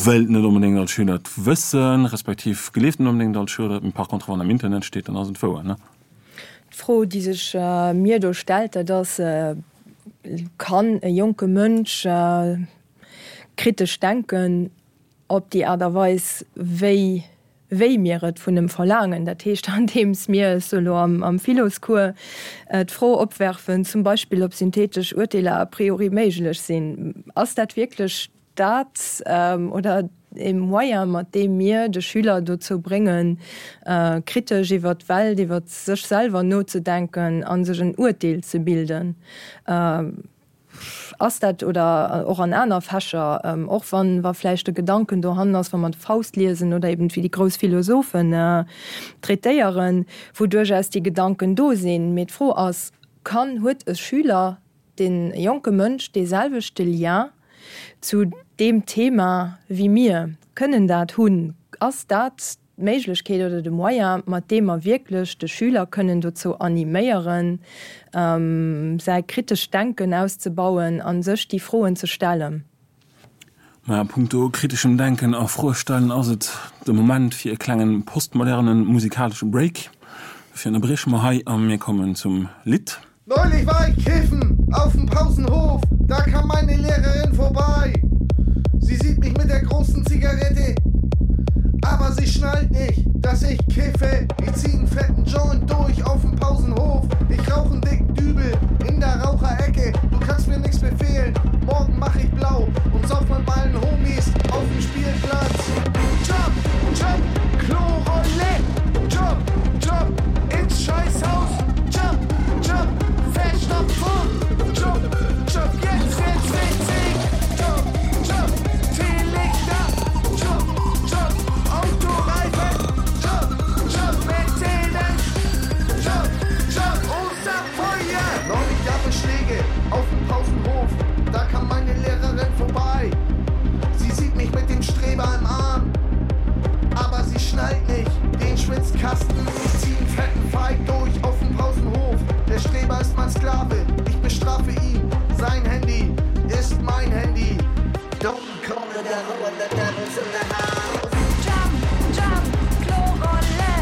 wëllt net onbedéngt all Schüler et wëssen, respektiv gleeft net onbedéngt all Schüler et, mee par contre wann am Internet steet, dann ass et wouer, ne?
D'Fro, déi sech mir do stellt, dat ass, Kann e jonke Mënsch kritesch denken op déi Aart a Weis, wéi wéi mir et vun em verlaangen, dat heescht andeems mir, ech soe lo am Philoscours, d'Fro opwerfen, zum Beispill ob synthetesch Urteeler a priori méiglech sinn. Ass dat wierklech dat oder e Moyen, mat deem mir de Schüler dozou bréngen, kritesch iwwer d'Welt, iwwer sech selwer nozedenken a sech en Urteel ze bilden? Ass dat, oder och an aner Fächer, och wann wa vläicht de Gedanken dohannen ass, wa mer de Faust liesen oder eben wéi déi grouss Philosophen traitéieren, wou duerchaus déi Gedanken do sinn. Mee d'Fro ass, Kann, huet e Schüler, dee jonke Mënsch dee selwechte Lien zu deem Thema wéi mir? Kënnen dat hunn? Ass dat d'Méiglechkeet oder de Moyen, mat deem mer wierklech de Schüler kënnen dozou animéieren, säi kritescht Denken auszebauen a sech déi Froen ze stellen.
Mä a punkto kriteschem Denken a Froe stellen ass et de Moment fir e klengen postmodernen musikalesche Break. Dofir ënnerbrieche mer hei a mir kommen zum Lidd.
Neulich war ich kiffen auf dem Pausenhof, da kam meine Lehrerin vorbei. Sie sieht mich mit der großen Zigarette, aber sie schnallt nicht, dass ich kiffe. Ich zieh einen fetten Joint durch auf dem Pausenhof. Ich rauche einen dicken Dübel in der Raucherecke. Du kannst mir nichts befehlen, morgen mach ich blau und sauf mit meinen Homies auf dem Spielplatz. Jump, jump, Klorolle, jump, jump ins Scheißhaus, jump, jump, Verstopfung, jump, jump, jetzt wird's witzig, jump, jump, Teelichter, jump, jump, Autoreifen, jump, jump, Mercedes, jump, jump, Osterfeuer! Neulich gab es Schläge auf dem Pausenhof, da kam meine Lehrerin vorbei. Sie sieht mich mit dem Streber im Arm, aber sie schnallt nicht den Schwitzkasten. Ich zieh einen fetten Fight durch auf dem Pausenhof. Der Streber ist mein Sklave, ich bestrafe ihn. Sein Handy ist mein Handy. Don't call the devil when the devil's in the house.
Jump, jump, Klorolle,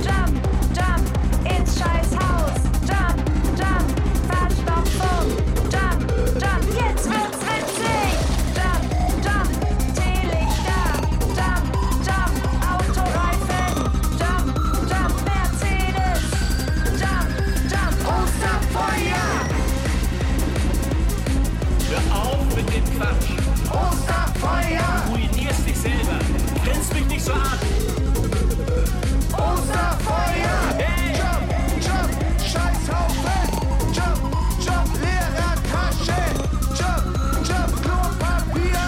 jump, jump, ins Scheißhaus, jump, jump, Verstopfung, jump, jump, jetzt wird's witzig, jump, jump, Teelichter, jump, jump, Autoreifen, jump, jump, Mercedes, jump, jump,
Osterfeuer!
Hör auf mit dem Quatsch!
Osterfeuer!
Du ruinierst dich selber! Grinst mich nicht so an!
Osterfeuer!
Hey!
Jump, jump, Scheißhaufen! Jump, jump, Lehrertasche! Jump, jump, Klopapier!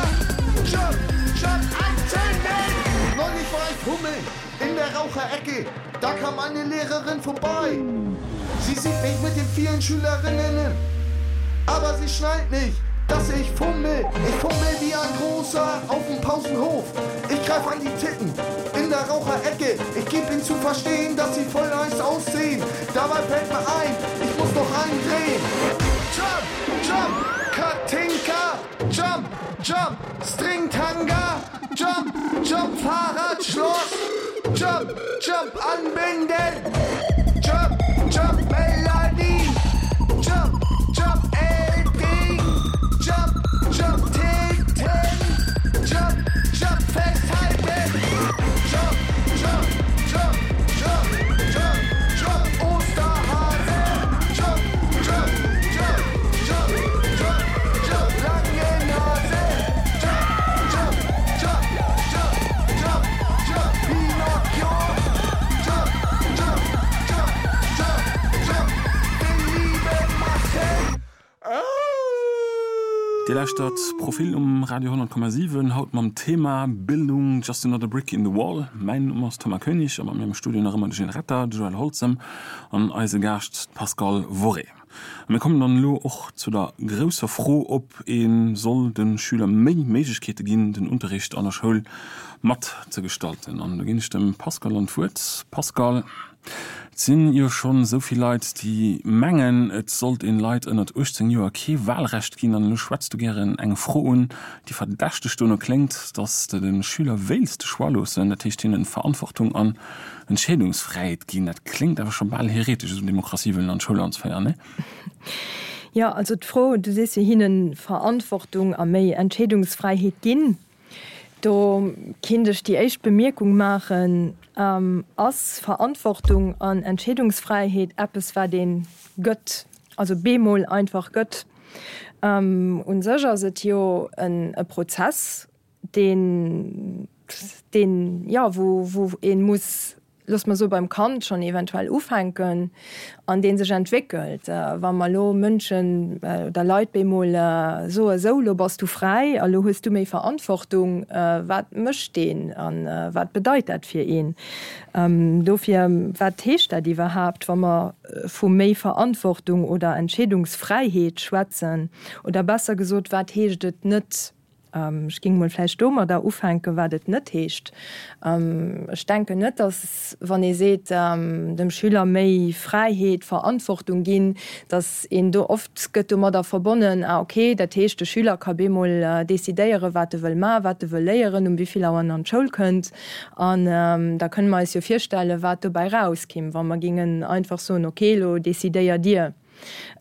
Jump, jump, Antennen! Neulich war ich fummeln in der Raucherecke, da kam eine Lehrerin vorbei. Sie sieht mich mit den vielen Schülerinnen, aber sie schnallt nicht, dass ich fummel. Ich fummel wie ein Großer auf dem Pausenhof. Ich greif an die Titten in der Raucherecke. Ich geb ihnen zu verstehen, dass sie voll nice aussehen. Dabei fällt mir ein, ich muss noch einen drehen. Jump, jump, Katinka, jump, jump, Stringtanga, jump, jump, Fahrradschloss, jump, jump, anbinden, jump, jump, Melanie, jump, jump, Edding, jump, jump, Titten, jump, jump, festhalten, jump, jump, jump, jump, jump, jump, Osterhase, jump, jump, jump, jump.
Dir lauschtert Profil um Radio 100,7, haut mam Thema Bildung, just another brick in the wall. Mäin Numm ass Thomas Koenig a mat mir am Studio nach ëmmer de Gilles Retter, de Joël Holzem an eise Gaascht d'Pascale Worré. A mir kommen dann elo och zu der grousser Fro, ob ee soll de Schüler méi Méiglechkeete ginn, den Unterricht an der Schoul mat ze gestalten. An do ginn ech dem Pascal dann d'Wuert. Pascal, et sinn jo schonn esou vill Leit, déi mengen, et sollt een Leit ënnert 18 Joer kee Wahlrecht ginn. An elo schwätz du gären eng Fro un, déi verdächteg dono kléngt, datt s de de Schüler wéilts de Choix loossen, dat heescht hinnen Verantwortung an Entscheedungsfräiheet ginn, dat kléngt awer scho bal heretesch, esou Demokratie wëllen an d'Schoul anzeféieren, nee?
Jo, also d'Fro, du sees jo, hinne Verantwortung a méi Entscheedungsfräiheet ginn, do kinnt ech déi éischt Bemierkung maachen, Ass Verantwortung an Entscheedungsfräiheet eppes, wat ee gëtt, also bemol einfach gëtt? U sech ass et jo e Prozess, deen, deen, jo, wou, wou ee muss, loosse mer soe beim Kand schonn eventuell ufänken an dee sech entwéckelt. Wa mer elo Mënschen oder Leit bemol soe sou, elo bass du fräi a lo hues du méi Verantwortung, wat mécht deen a wat bedeit dat fir een? Dofir, wat heescht dat iwwerhaapt, wa mer vu méi Verantwortung oder Entscheedungsfräiheet schwätzen? Oder besser gesot, wat heescht et net? Ech géing emol vläicht domadder ufänken, wat et net heescht. Ech denken net, datt, wann ee seet, dem Schüler méi Fräiheet, Verantwortung ginn, datt een do, oft gëtt domadder verbonnen, ah okay, dat heescht, de Schüler ka bemol decidéieren, wat e wëll maachen, wat e wëll léieren, um wéi vill Auer en an d'Schoul kënnt. An da kënne mer eis jo virstellen, wat dobäi rauskimm, wa mer géingen einfach soen, okay, elo decidéiert Dir.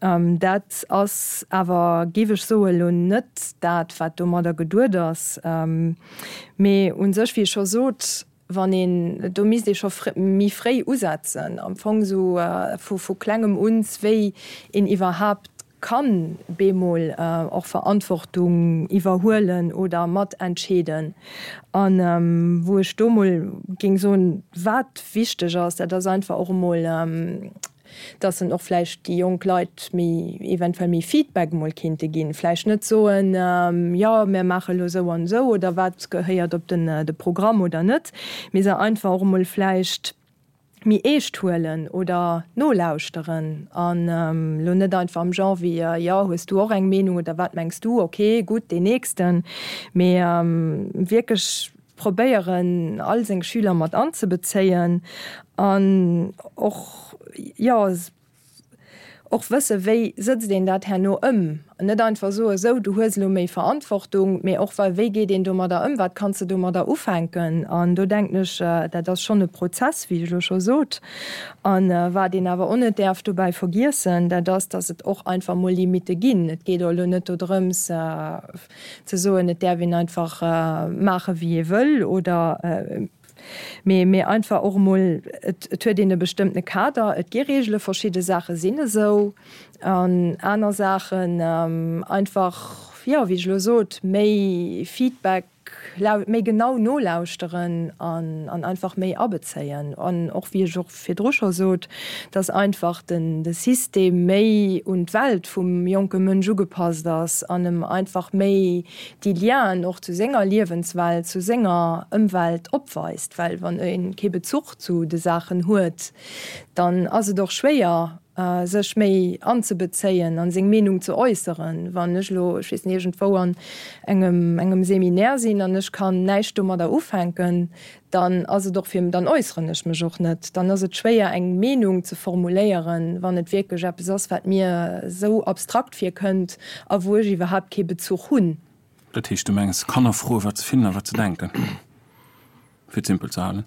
Dat ass awer, géif ech soen, elo net dat, wat domadder geduet ass. Mee u sech, wéi ech scho sot, wann een, do misst ee scho méi fréi usetzen, am Fong esou vu Klengem un, wéi een iwwerhaapt kann bemol och Verantwortung iwwerhuelen oder matentscheeden. An wou ech do mol géing soen, wat wichteg ass, dat ass einfach och emol, dass en och vläicht déi jonk Leit méi, eventuell méi Feedback emol kinnte ginn, vläicht net soen, jo mir maache elo esou an esou oder wat gehéiert op den de Programm oder net, mee se einfach och emol vläicht méi eescht huelen oder nolauschteren an elo net einfach am Genre wéi, jo hues du och eng Meenung oder wat mengs du, ok gutt deen nächsten, mee wierklech probéieren all seng Schüler mat anzebezéien an och, jo, och wësse wéi sëtzt een dat herno ëm. Net einfach soe sou, du hues elo méi Verantwortung, mee och wei geet een domadder ëm, wat kanns de domadder ufänken. An do denken ech, dat ass schonn e Prozess, wéi ech elo scho sot. A wat een awer och net däerf dobäi vergiessen, dat ass, datt et och einfach mol Limitte ginn. Et geet och elo net dodrëms, ze soen, et däerf een einfach maache wéi ee wëll oder, mee, mee einfach och emol, et, et huet een e bestëmmtene Kader, et gi Reegele, verschidde Saache sinn esou an aner Saachen einfach, jo, wéi ech elo sot, méi Feedback, méi genau nolauschteren an, an einfach méi abezéien an och, wéi ech och virdru scho sot, dass einfach den de System méi un d'Welt vum jonke Mënsch ugepasst ass an em einfach méi déi Lienen och zu senger Liewenswelt, zu senger Ëmwelt opweist. Well wann e kee Bezuch zu de Saachen huet, dann ass et och schwéier, sech méi anzebezéien an seng Meenung ze äusseren. Wann ech elo, ech weess net, iergendwou an engem engem Seminaire sinn an ech kann näischt domadder ufänken, dann ass et och fir, dann äusseren ech mech och net. Dann ass et schwéier eng Meenung ze formuléieren, wann et wierklech eppes ass, wat mir esou abstrakt virkënnt a wou ech iwwerhaapt kee Bezuch hunn.
Dat heescht, du mengs Kanner froen, wat se finnen a wat se denken, fir et simpel ze halen?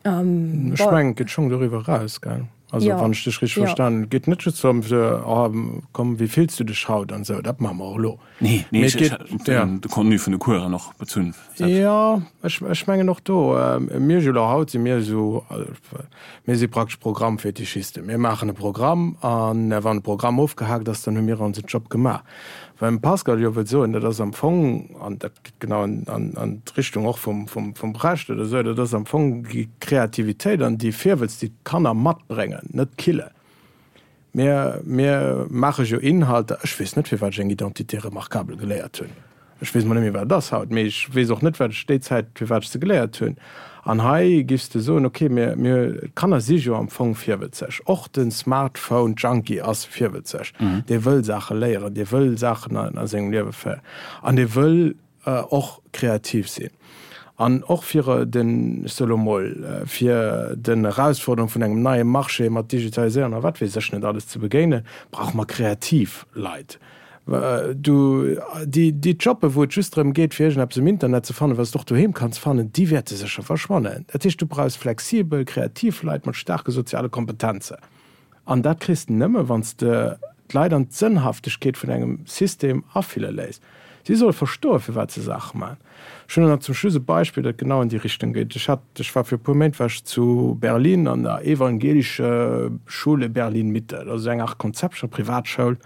Ech mengen, et geet schonn doriwwer eraus, gell? Also wann ech dech richteg verstanen hunn, et geet net just drëm, oh komm, wéi fills du dech haut an esou, dat maache mer och elo.
Nee, nee, ech hat de Contenu vun de Coursen och bezunn.
Jo, ech mengen och do, mir elo haut si mir esou, mir si praktesch Programmfetischisten. Mir maachen e Programm an wann de Programm ofgehaakt ass, dann hu mir onsen Job gemaach. Wat dem Pascal jo wëllt soen, dat ass am Fong, an dat geet genau an d'Richtung och vum Brecht oder esou, dat ass am Fong déi Kreativitéit an déi Virwëtz, déi d'Kanner matbréngen, net killen. Mir, mir maache jo Inhalter, ech weess net, firwat ech eng Identité remarquable geléiert hunn. Ech weess mol net méi, wat et ass haut, mee ech weess och net, wat ech déi Zäit, firwat ech se geléiert hunn. An hei giffs de soen, okay, mir, mir, d'Kanner si jo am Fong virwëtzeg. Och de Smartphone-Junkie ass virwëtzeg. Dee wëll Saache léieren, dee wëll Saachen a, a sengem Liewe féieren an dee wëll och kreativ sinn. An och fir den, ech soe lo mol, fir den Erausforderung vun engem neie Marché mat Digitaliséierung a wat weess ech net alles ze begéinen, brauche mer kreativ Leit. Du, déi, déi Jobbe wou et just drëm geet fir iergendeppes um Internet ze fannen, wat s de och doheem kanns fannen, déi wäerte sécher verschwannen. Dat heescht, du brauchs flexibel, kreativ Leit mat staarke soziale Kompetenzen. An dat kriss de nëmme wann s de d'Leit an d'Sënnhaftegkeet vun engem System afille léiss. Si solle verstoen, firwat se Saache maachen. Ech hunn nach zum Schluss e Beispill, dat genau an déi Richtung geet. Ech hat, ech war fir e puer Méint war ech zu Berlin an der Evangelische Schule Berlin-Mitte. Dat ass esou eng Art Konzept, Privatschoul.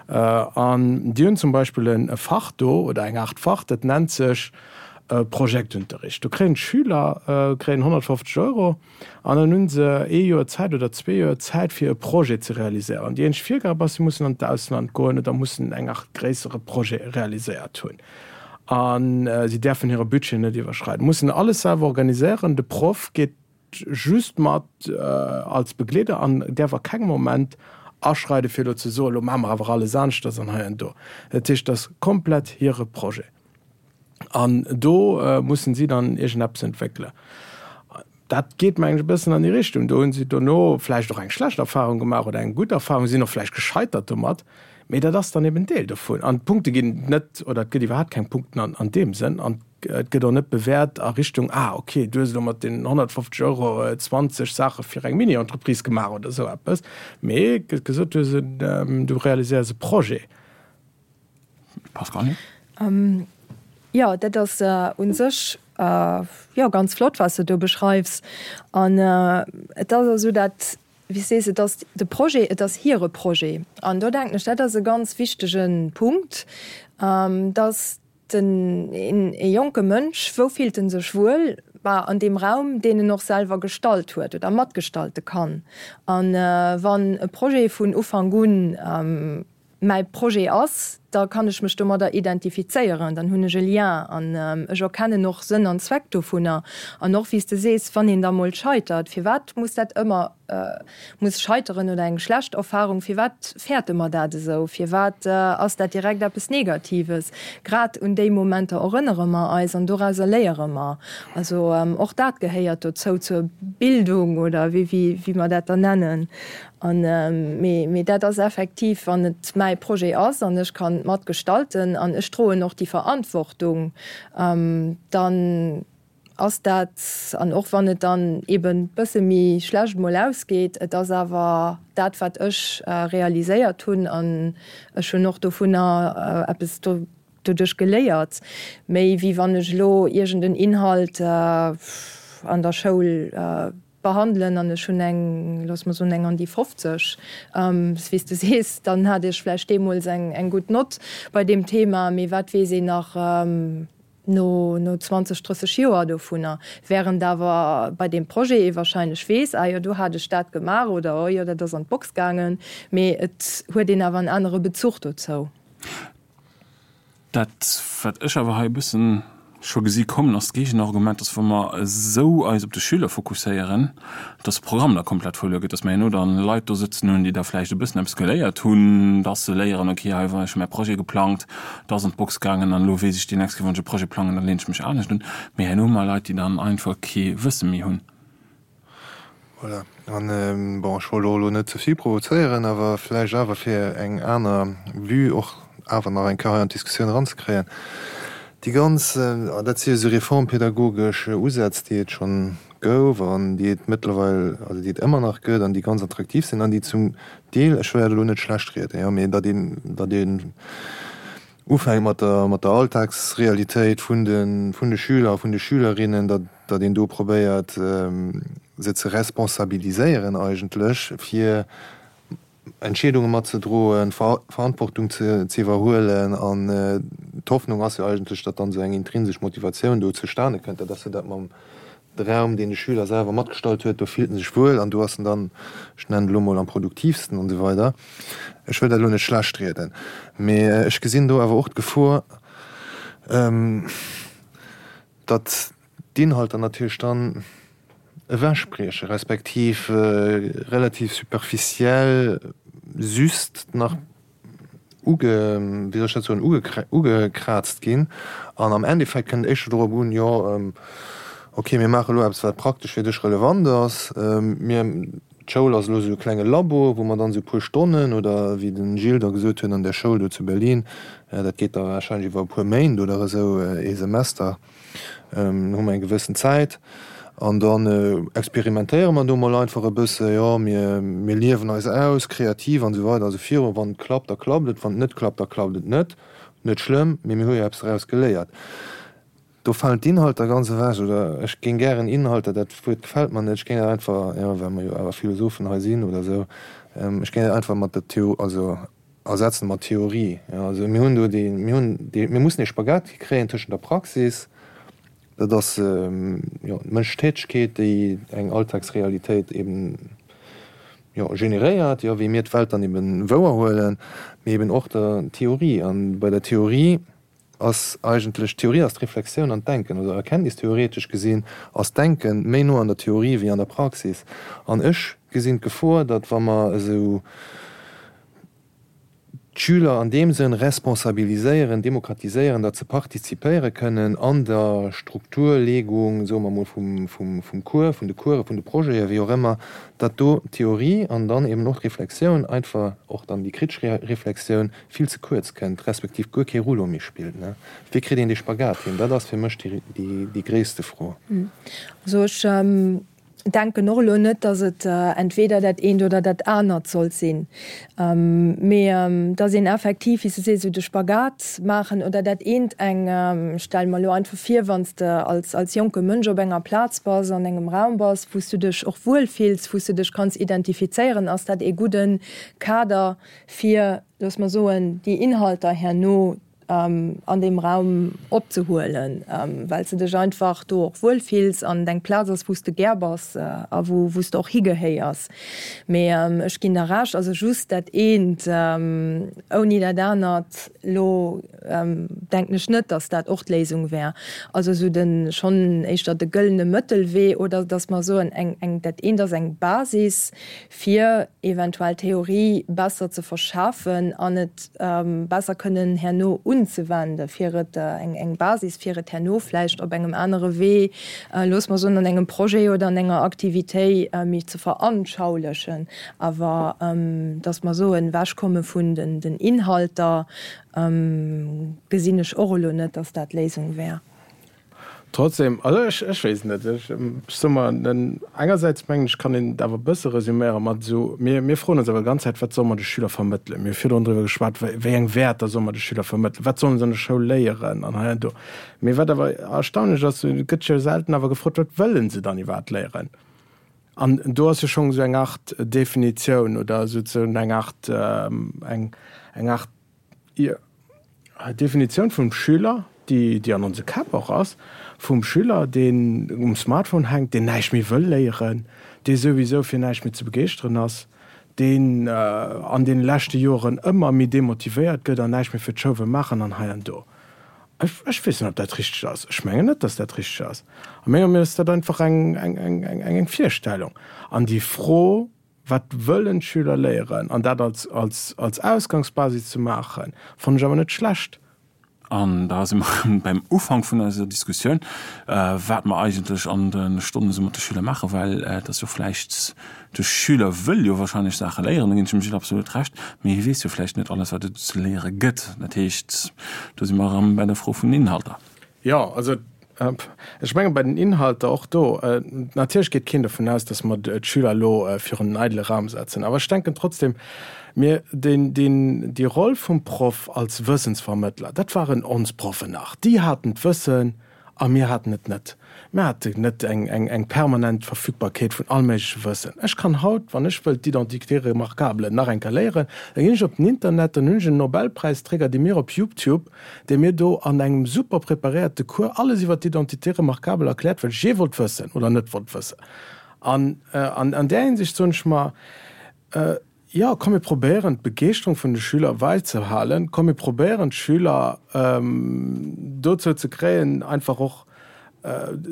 An déi hunn zum Beispill e Fach do oder eng Art Fach, dat nennt sech Projektunterricht. Do kréien d'Schüler kréien 150 Euro an dann hu se ee Joer Zäit oder zwee Joer Zäit fir e Projet ze realiséieren. Déi eenzeg Virgab ass, si mussen an d'Ausland goen oder mussen eng Art gréissere Projet realiséiert hunn. A si däerfen hire Budget net iwwerschreiden, mussen alles selwer organiséieren. De Proff geet just mat als Begleeder an däerf a kengem Moment aschreiden, fir elo ze soen, elo maache mer awer alles aneschters an hei an do. Dat heescht, dat ass komplett hire Projet an do mussen si dann iergendeppes entwéckelen. Dat geet, mengen ech, e bëssen an déi Richtung. Do hu si dono vläicht och eng schlecht Erfahrung gemaach oder eng gutt Erfahrung, sinn och vläicht gescheitert domat, mee dat ass dann eben Deel dovun. An d'Punkte ginn net, oder et gëtt iwwerhaapt keng Punkten an deem Sënn. An Et gëtt och net bewäert a Richtung, ah ok, du hues elo mat deenen 150 Euro 20 Saache fir eng Mini-Entreprise gemaach oder esou eppes, mee et gëtt gesot, du hues en, du realiséiers e Projet.
Pascale?
Jo, dat ass u sech jo ganz flott, wat s de do beschreifs. An et ass esou, dat, wéi s sees, et ass de Projet, et ass hire Projet. An do denken ech, dat ass e ganz wichtege Punkt, dass Den, een, ee jonke Mënsch, wou fillt en sech wuel? Bah, an deem Raum, deen en och selwer gestalt huet oder matgestalte kann. An wann e Projet vun Ufank un mäi Projet ass, da kann ech mech domadder identifizéieren, dann hunn ech e Lien an ech erkennen och Sënn an Zweck dovunner. An och, wéi s de sees, wann een da mol scheitert, firwat muss dat ëmmer muss scheiteren oder eng schlecht Erfahrung, firwat fäerte mer dat esou? Firwat ass dat direkt eppes Negatives? Grad un déi Momenter erënnere mer eis an dorauser léiere mer. Also och dat gehéiert dozou, zur Bildung oder wéi wéi mer dat dann nennen. An mee mee dat ass effektiv, wann et mäi Projet ass an ech kann mat gestalten an ech droen och déi Verantwortung, dann ass dat, an och wann et dann eben bësse méi schlecht mol ausgeet, et ass awer dat wat ech realiséiert hunn an ech hunn och dovunner eppes doduerch geléiert, méi wéi wann ech elo iergend en Inhalt an der Schoul behandelen an ech hunn eng, looss mer soen, eng an déi 50, wéi s de sees, dann hat ech vläicht deemools eng gutt Nott bei deem Thema, mee wat weess een nach no no 20, 30 Joer dovunner, während awer bei deem Projet ee wahrscheinlech weess, ah jo, do hat ech dat gemaach oder oh jo, dat ass an d'Box gaangen, mee et huet een awer en anere Bezuch dozou.
Dat, wat ech awer hei e bëssen scho gesi kommen, ass d'Géigenargument, dass wa mer esou eis op de Schüler fokusséieren, dass de Programm da komplett verluer geet, dass mer herno dann Leit do sëtzen hunn, déi da vläicht e bëssen eppes geléiert hunn, dass se léieren, okay, hei war ech hu mäi Projet geplangt, dat ass an d'Box gaangen an elo weess ech, déi nächst Kéier, wann ech e Projet plangen, da leen ech mech anescht un. Mee herno hu mer Leit, déi dann einfach kee Wësse méi hunn.
Voilà. An, bon, ech wollt och elo net ze vill provozéieren, awer vläicht awer fir eng aner Vue och awer nach eng Kéier hei an d'Diskussioun eranzekréien. Déi ganz, dat si jo esou reformpädagogesch Usätz, déi et schonn gouf an déi et mëttlerweil, also déi et ëmmer nach gëtt an déi ganz attraktiv sinn an déi zum Deel, ech wëll dat elo net schlechtrieden, jo, mee datt een, datt een ufänkt mat der, mat der Alltagsrealitéit vun de, vun de Schüler a vun de Schülerinnen, datt, datt een do probéiert, se ze responsabiliséieren eigentlech, fir Entscheedunge matzedroen, Verantwortung ze iwwerhuelen. An d'Hoffnung ass jo eigentlech, datt dann esou eng intrinsesch Motivatioun do zustane kënnt. Dat ass jo dat mam. De Raum, deen de Schüler selwer matgestallt huet, do fillt en sech wuel an do ass en dann, ech nennen et elo mol, am produktiivsten an esou weider. Ech wëll dat elo net schlecht rieden, mee ech gesinn do awer och d'Gefor, datt d'Inhalter natierlech dann ewechbrieche respektiv relativ superficiell just nach uge, wéi soll ech dat soen, ugekraazt ginn an am Endeffekt kënnt et éischter dorop un, jo ok, mir maache elo eppes wat praktesch fir dech relevant ass, mir, d'Schoul ass elo esou e klenge Labo, wou mer dann esou e puer Stonnen oder wéi de Gilles da gesot huet an där Schoul do zu Berlin, dat geet da warscheinlech iwwer e puer Méint oder esou, ee Semester. Hu mer eng gewëssen Zäit an dann experimentéiere mer do mol einfach e bësse, jo mir mir liewen eis aus, kreativ an esou weider a sou viru. Wann et klappt, da klappt et, wann et net klappt, da klappt et net. Net schlëmm, mee mir hu jo eppes draus geléiert. Do falen d'Inhalter ganz ewech, oder ech géing gären Inhalter, dat Wuert gefält mer net, ech géing dat einfach, jo well mer jo awer Philosophen hei sinn oder esou, ech géing dat einfach mat der Theo, also Ersetzen mat Theorie. Jo, also mir hunn do déi, mir hunn déi, mir mussen ee Spagat kréien tëschent der Praxis, dat ass jo d'mënschlech Tätegkeet, déi eng Alltagsrealitéit eben jo generéiert, jo wéi mir d'Welt dann eben wouerhuelen, mee eben och der Theorie. An bei der Theorie ass eigentlech, d'Theorie ass d'Reflexioun an d'Denken, also erkenntnistheoretesch gesinn ass d'Denken méi no an der Theorie wéi an der Praxis. An ech gesinn d'Gefor, datt wa mer esou d'Schüler an deem Sënn responsabiliséieren, demokratiséieren, datt se partizipéiere kënnen an der Strukturlegung, soe mer emol, vum, vum, vum Cours, vun de Coursen, vun de Projeten, wéi och ëmmer, datt do d'Theorie an dann eben och d'Reflexioun, einfach och dann déi kritesch Reflexioun, vill ze kuerz kënnt, respektiv guer kee Rouleau méi spillt. Wéi kritt een dee Spagat hin? Dat ass fir mech déi gréisste Fro.
Also ech denken och elo net, datt et entweder dat eent oder dat anert sollt sinn, mee datt een effektiv, wéi s de sees, esou de Spagat maachen oder dat eent eng, ech stelle mer elo einfach vir, wann s de als als jonke Mënsch op enger Plaz bass, an engem Raum bass, wou s du dech och wuel fills, wou s du dech kanns identifizéieren, ass dat ee gudde Kader fir, looss mer soen, déi Inhalter herno an deem Raum opzehuelen, well s de dech einfach do och wuel fills an et eng Plaz ass, wou s de gär bass a wou s de och higehéiers. Mee ech ginn der Recht, also just dat eent ouni dat anert, elo denken ech net, datt dat och d'Léisung wär. Also esou de schonn éischter de gëllene Mëttelwee oder datt mer soen, eng, eng, dat eent ass eng Basis, fir eventuell Theorie besser ze verschafen an et besser kënnen herno unzewenden, fir et eng Basis, fir et herno vläicht op engem anere Wee, loosse mer soen, an engem Projet oder an enger Aktivitéit méi ze veranschaulichen. Awer dass mer soen, ewechkomme vun den Inhalter, gesinn ech och elo net, dass dat d'Léisung wär.
Trotzdem, also ech, ech weess et net. Ech, ech soe mer, den, engersäits mengen ech, kann een et awer e bësse resüméiere mat esou, mir, mir froen ons awer d'ganz Zäit, wat solle mer de Schüler vermëttelen? Mir hu virdrun driwwer geschwat, wéi, wéi eng Wäerter solle mer de Schüler vermëttelen? Wat sollen se an der Schoul léieren an hei an do? Mee wat awer erstaunlech ass, et gëtt jo selten awer gefrot, wat wëllen se dann iwwerhaapt léieren? An do ass jo schonn esou eng Art Definitioun oder souzesoen eng Art, eng, eng Art, Jo, d'Definitioun vum Schüler, déi, déi an onse Käpp och ass, vum Schüler, deen um Smartphone hänkt, deen näischt méi wëll léieren, dee souwisou fir näischt méi ze begeeschteren ass, deen an deene leschte Joren ëmmer méi demotivéiert gëtt an näischt méi fir d'Schoul wëll maachen an hei an do. Ech, ech weess net, ob dat richteg ass. Ech mengen net, dass dat richteg ass. A menger Meenung ass dat einfach eng, eng, eng, eng, eng Virstellung. An déi Fro, Wat wëllen d'Schüler léieren? An dat als, als, als Ausgangsbasis ze maachen, fannen ech awer net schlecht.
An da si mer erëm beim Ufank vun eiser Diskussioun, wat mer eigentlech an de Stonnen esou mat de Schüler maachen, well et ass jo vläicht, de Schüler wëll jo wahrscheinlech Saache léieren, do ginn ech dem Gilles absolut Recht, mee hie weess jo vläicht net alles, wat et ze léiere gëtt. Dat heescht, do si mer erëm bei der Fro vun den Inhalter.
Jo, also ech menge bei den Inhalter och do, natierlech geet keen dovun aus, datt mer d'Schüler elo virun en eidele Raum setzen. Awer ech denken trotzdem, mir, deen, deen, déi Roll vum Proff als Wëssensvermëttler, dat waren ons Proffen nach. Déi haten d'Wëssen. A mir haten et net. Mir haten net eng, eng, eng permanent Verfügbarkeet vun all méigleche Wëssen. Ech kann haut, wann ech wëll d'Identité remarquable nach eng Kéier léieren, da ginn ech op den Internet, dann hunn ech en Nobelpräisträger, dee mir op YouTube, dee mir do an engem super preparéierte Cours alles iwwer d'Identité remarquable erkläert, wat ech jee wollt wëssen oder net wollt wëssen. An an där Hinsicht soen ech mer, Jo, komm mir probéieren d'Begeeschterung vun de Schüler weizehalen. Komm mir probéieren d'Schüler dozou ze kréien, einfach och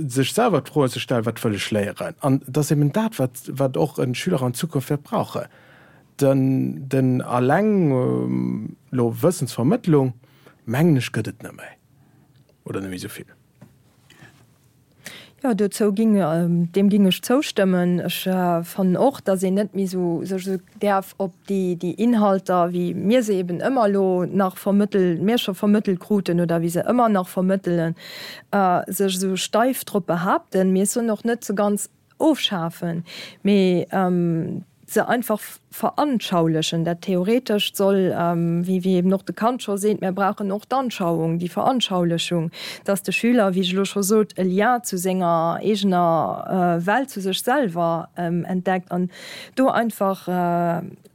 sech selwer d'Froen ze stellen, Wat wëll ech léieren? An et ass eben dat, wat, wat och e Schüler an Zukunft wäert brauchen. Den, den alleng elo Wëssensvermëttlung, mengen ech, gëtt et net méi oder net méi esou vill.
Jo, dozou ging, deem ging ech zoustëmmen. Ech fannen och, datt een net méi esou sech esou däerf op déi, déi Inhalter, wéi mir se eben ëmmer elo nach vermëttel, mir scho vermëttelt kruten oder wéi se ëmmer nach vermëttelen, sech esou steif drop behaapten. Mee ech soen och net se ganz ofschafen, mee se einfach veranschaulichen. Dat Theoretescht soll, wéi wéi eben och de Kant scho seet, mir brauchen och d'Anschauung, déi Veranschaulichung, dass de Schüler, wéi ech elo scho sot, e Lien zu senger eegener Welt, zu sech selwer entdeckt an do einfach,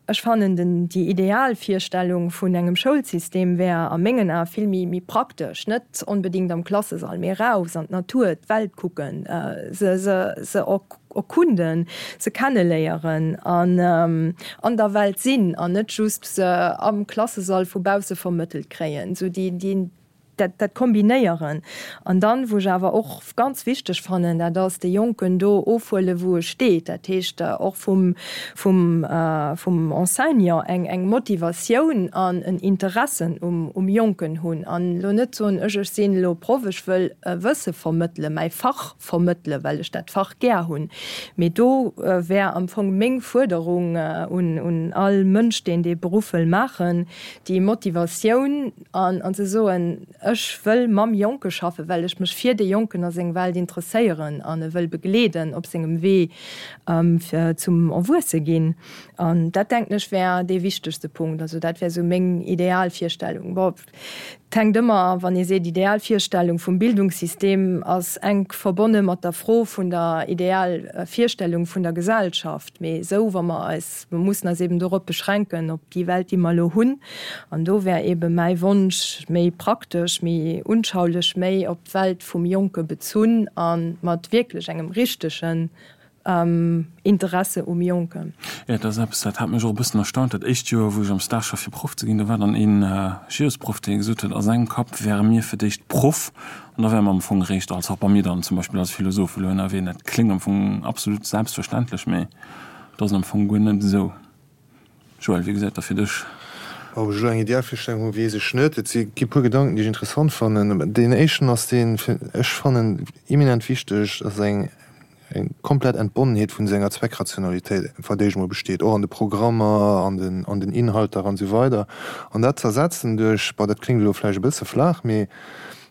Ech fannen den déi ideal Virstellung vun engem Schoulsystem wär a mengen Ae vill méi méi praktesch, net onbedingt am Klassesall, mee raus an d'Natur, d'Welt kucken, se se se erkunden, se kenneléieren an an der Welt sinn an net just se am Klassesall vu bausse vermëttelt kréien. Esou déi déi Dat, dat kombinéieren. An dann, wou ech awer och ganz wichteg fannen, dat ass de Jonken do ofhuelen, wou e steet. Dat heescht och vum, vum, vum Enseignant eng, eng Motivatioun an en Interessen um, um Jonken hunn. An elo net soen, ech, ech sinn elo Proff, ech wëll e Wësse vermëttelen, mäi Fach vermëttelen, well ech dat Fach gär hunn. Mee do wär am Fong meng Fuerderung un, un all Mënsch, deen dee Beruff wëll maachen, déi Motivatioun, An an ze soen, ech wëll mam Jonke schaffen, well ech mech fir dee Jonken a seng Welt interesséieren an e wëll begleeden op sengem Wee fir zum Erwuesse ginn. An dat, denken ech, wär dee wichtegste Punkt. Also dat wär esou meng Idealvirstellung. Bon, et hänkt ëmmer, wann ee seet Idealvirstellung vum Bildungssystem, ass enk verbonne mat der Fro vun der Idealvirstellung vun der Gesellschaft. Mee esou, wa mer eis, mer mussen eis eben dorop beschränken, op déi Welt, déi mer elo hunn. An do wär ebe mäi Wonsch, méi praktesch, méi unschaulech, méi op d'Welt vum Jonke bezunn a mat wierklech engem richtegen Interesse um Jonken.
Jo, dat ass eppes, dat hat mech och e bëssen erstaunt. Dat éischt Joer, wou ech am Stage war fir Proff ze ginn, do war dann een Geosproff, dee gesot huet, a sengem Kapp wäre mir fir d'éischt Proff An da wäre mer am Fong eréischt als, och bei mir dann zum Beispill als Philosoph elo ënnerwee. Dat kléngt am Fong absolut selbstverständlech, mee et ass am Fong guer net esou. Joël, wéi gesäit dat fir dech?
Ob ech elo eng Idealvirstellung hu weess ech net. Et si gi puer Gedanken, déi ech interessant fannen. Deen éischten ass deen, ech fannen eminent wichteg, dass eng eng komplett Entbonnenheet vun senger Zweckrationalitéit wat éischt emol besteet, och an de Programmer, an den an den Inhalter an esou weider. An dat z'ersetzen duerch, bon dat kléngt elo vläicht e bësse flaach, mee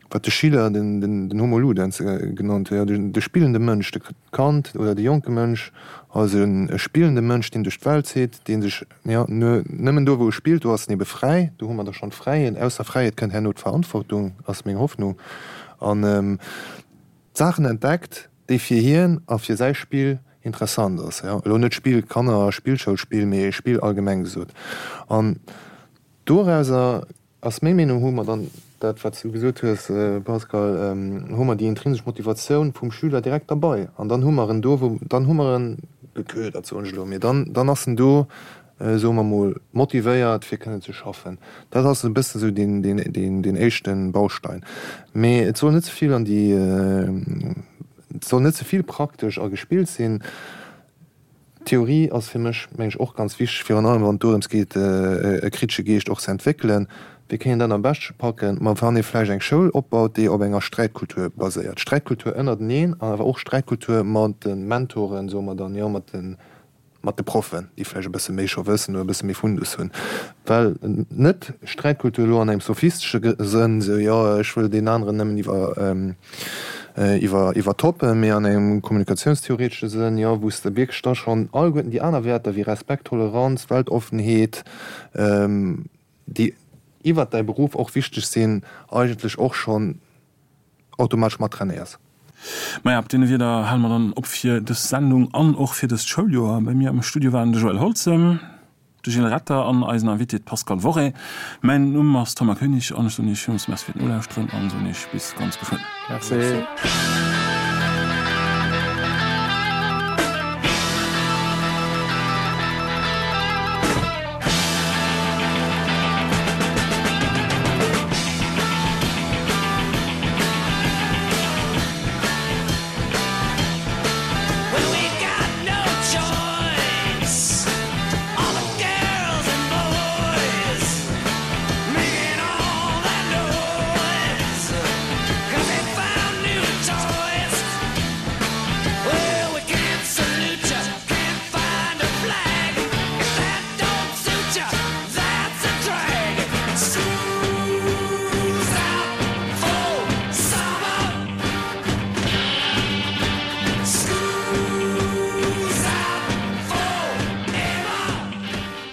wat de Schiller den den den Homo ludens genannt huet, jo de de spillende Mënsch, de Kand oder de jonke Mënsch als e spillende Mënsch, deen duerch d'Welt zitt, dee sech, jo, nëmmen do wou e spillt, do ass en ebe fräi, do hu mer da schonn d'Fräiheet, aus der Fräiheet kënnt herno d'Verantwortung, ass meng Hoffnung, an d'Saachen entdeckt, déi fir hien a fir säi Spill interessant ass, jo, elo net Spill Kanner Spillschoulspill, mee Spill allgemeng gesot. An dorauser ass meng Meenung, hu mer dann dat, wat s du gesot hues, Pascal, hu mer déi intrinsesch Motivatioun vum Schüler direkt derbei. An dann hu mer en do, wou, dann hu mer en geködert, soen ech elo, mee dann, dann ass en do, soe mer mol, motivéiert fir kënnen ze schaffen. Dat ass e bëssen esou deen, deen, deen, deen éischte Baustein. Mee et soll net ze vill an déi, et soll net ze vill praktesch a gespillt sinn. D'Theorie ass fir mech, meng ech, och ganz wichteg, virun allem wann et dorëms geet, e kritesche Geescht och ze entwéckelen. Wéi kéint een dat am beschte packen? Ma wann ee vläicht eng Schoul opbaut, déi op enger Sträitkultur baséiert, Sträitkultur ënnerteneen an awer och Sträitkultur mat de Mentoren, soe mer dann, jo, mat de mat de Proffen, déi vläicht e bësse méi scho wëssen oder e bësse méi Fundus hunn, well net Sträitkultur elo an engem sophistesche Sënn, esou jo ech wëll deen aneren nëmmen iwwer iwwer iwwertoppen, mee an engem kommunikatiounstheoretesche Sënn, jo wou s de wierklech da schonn alleguerten déi aner Wäerter wéi Respekt, Toleranz, Weltoffenheet, déi iwwert däi Beruff och wichteg sinn, eigentlech och schonn. automatesch mat trainéiers.
Maja, op deene Wierder hale mer dann op fir dës Sendung an och fir dëst Schouljoer. Bei mir am Studio waren de Joël Holzem, de Gilles Retter an eisen Invité, d'Pascale Worré. Mäin Numm ass Thomas Koenig an ech soen Iech villmools Merci fir d'Nolauschteren an soen Iech bis ganz geschwënn.
Merci.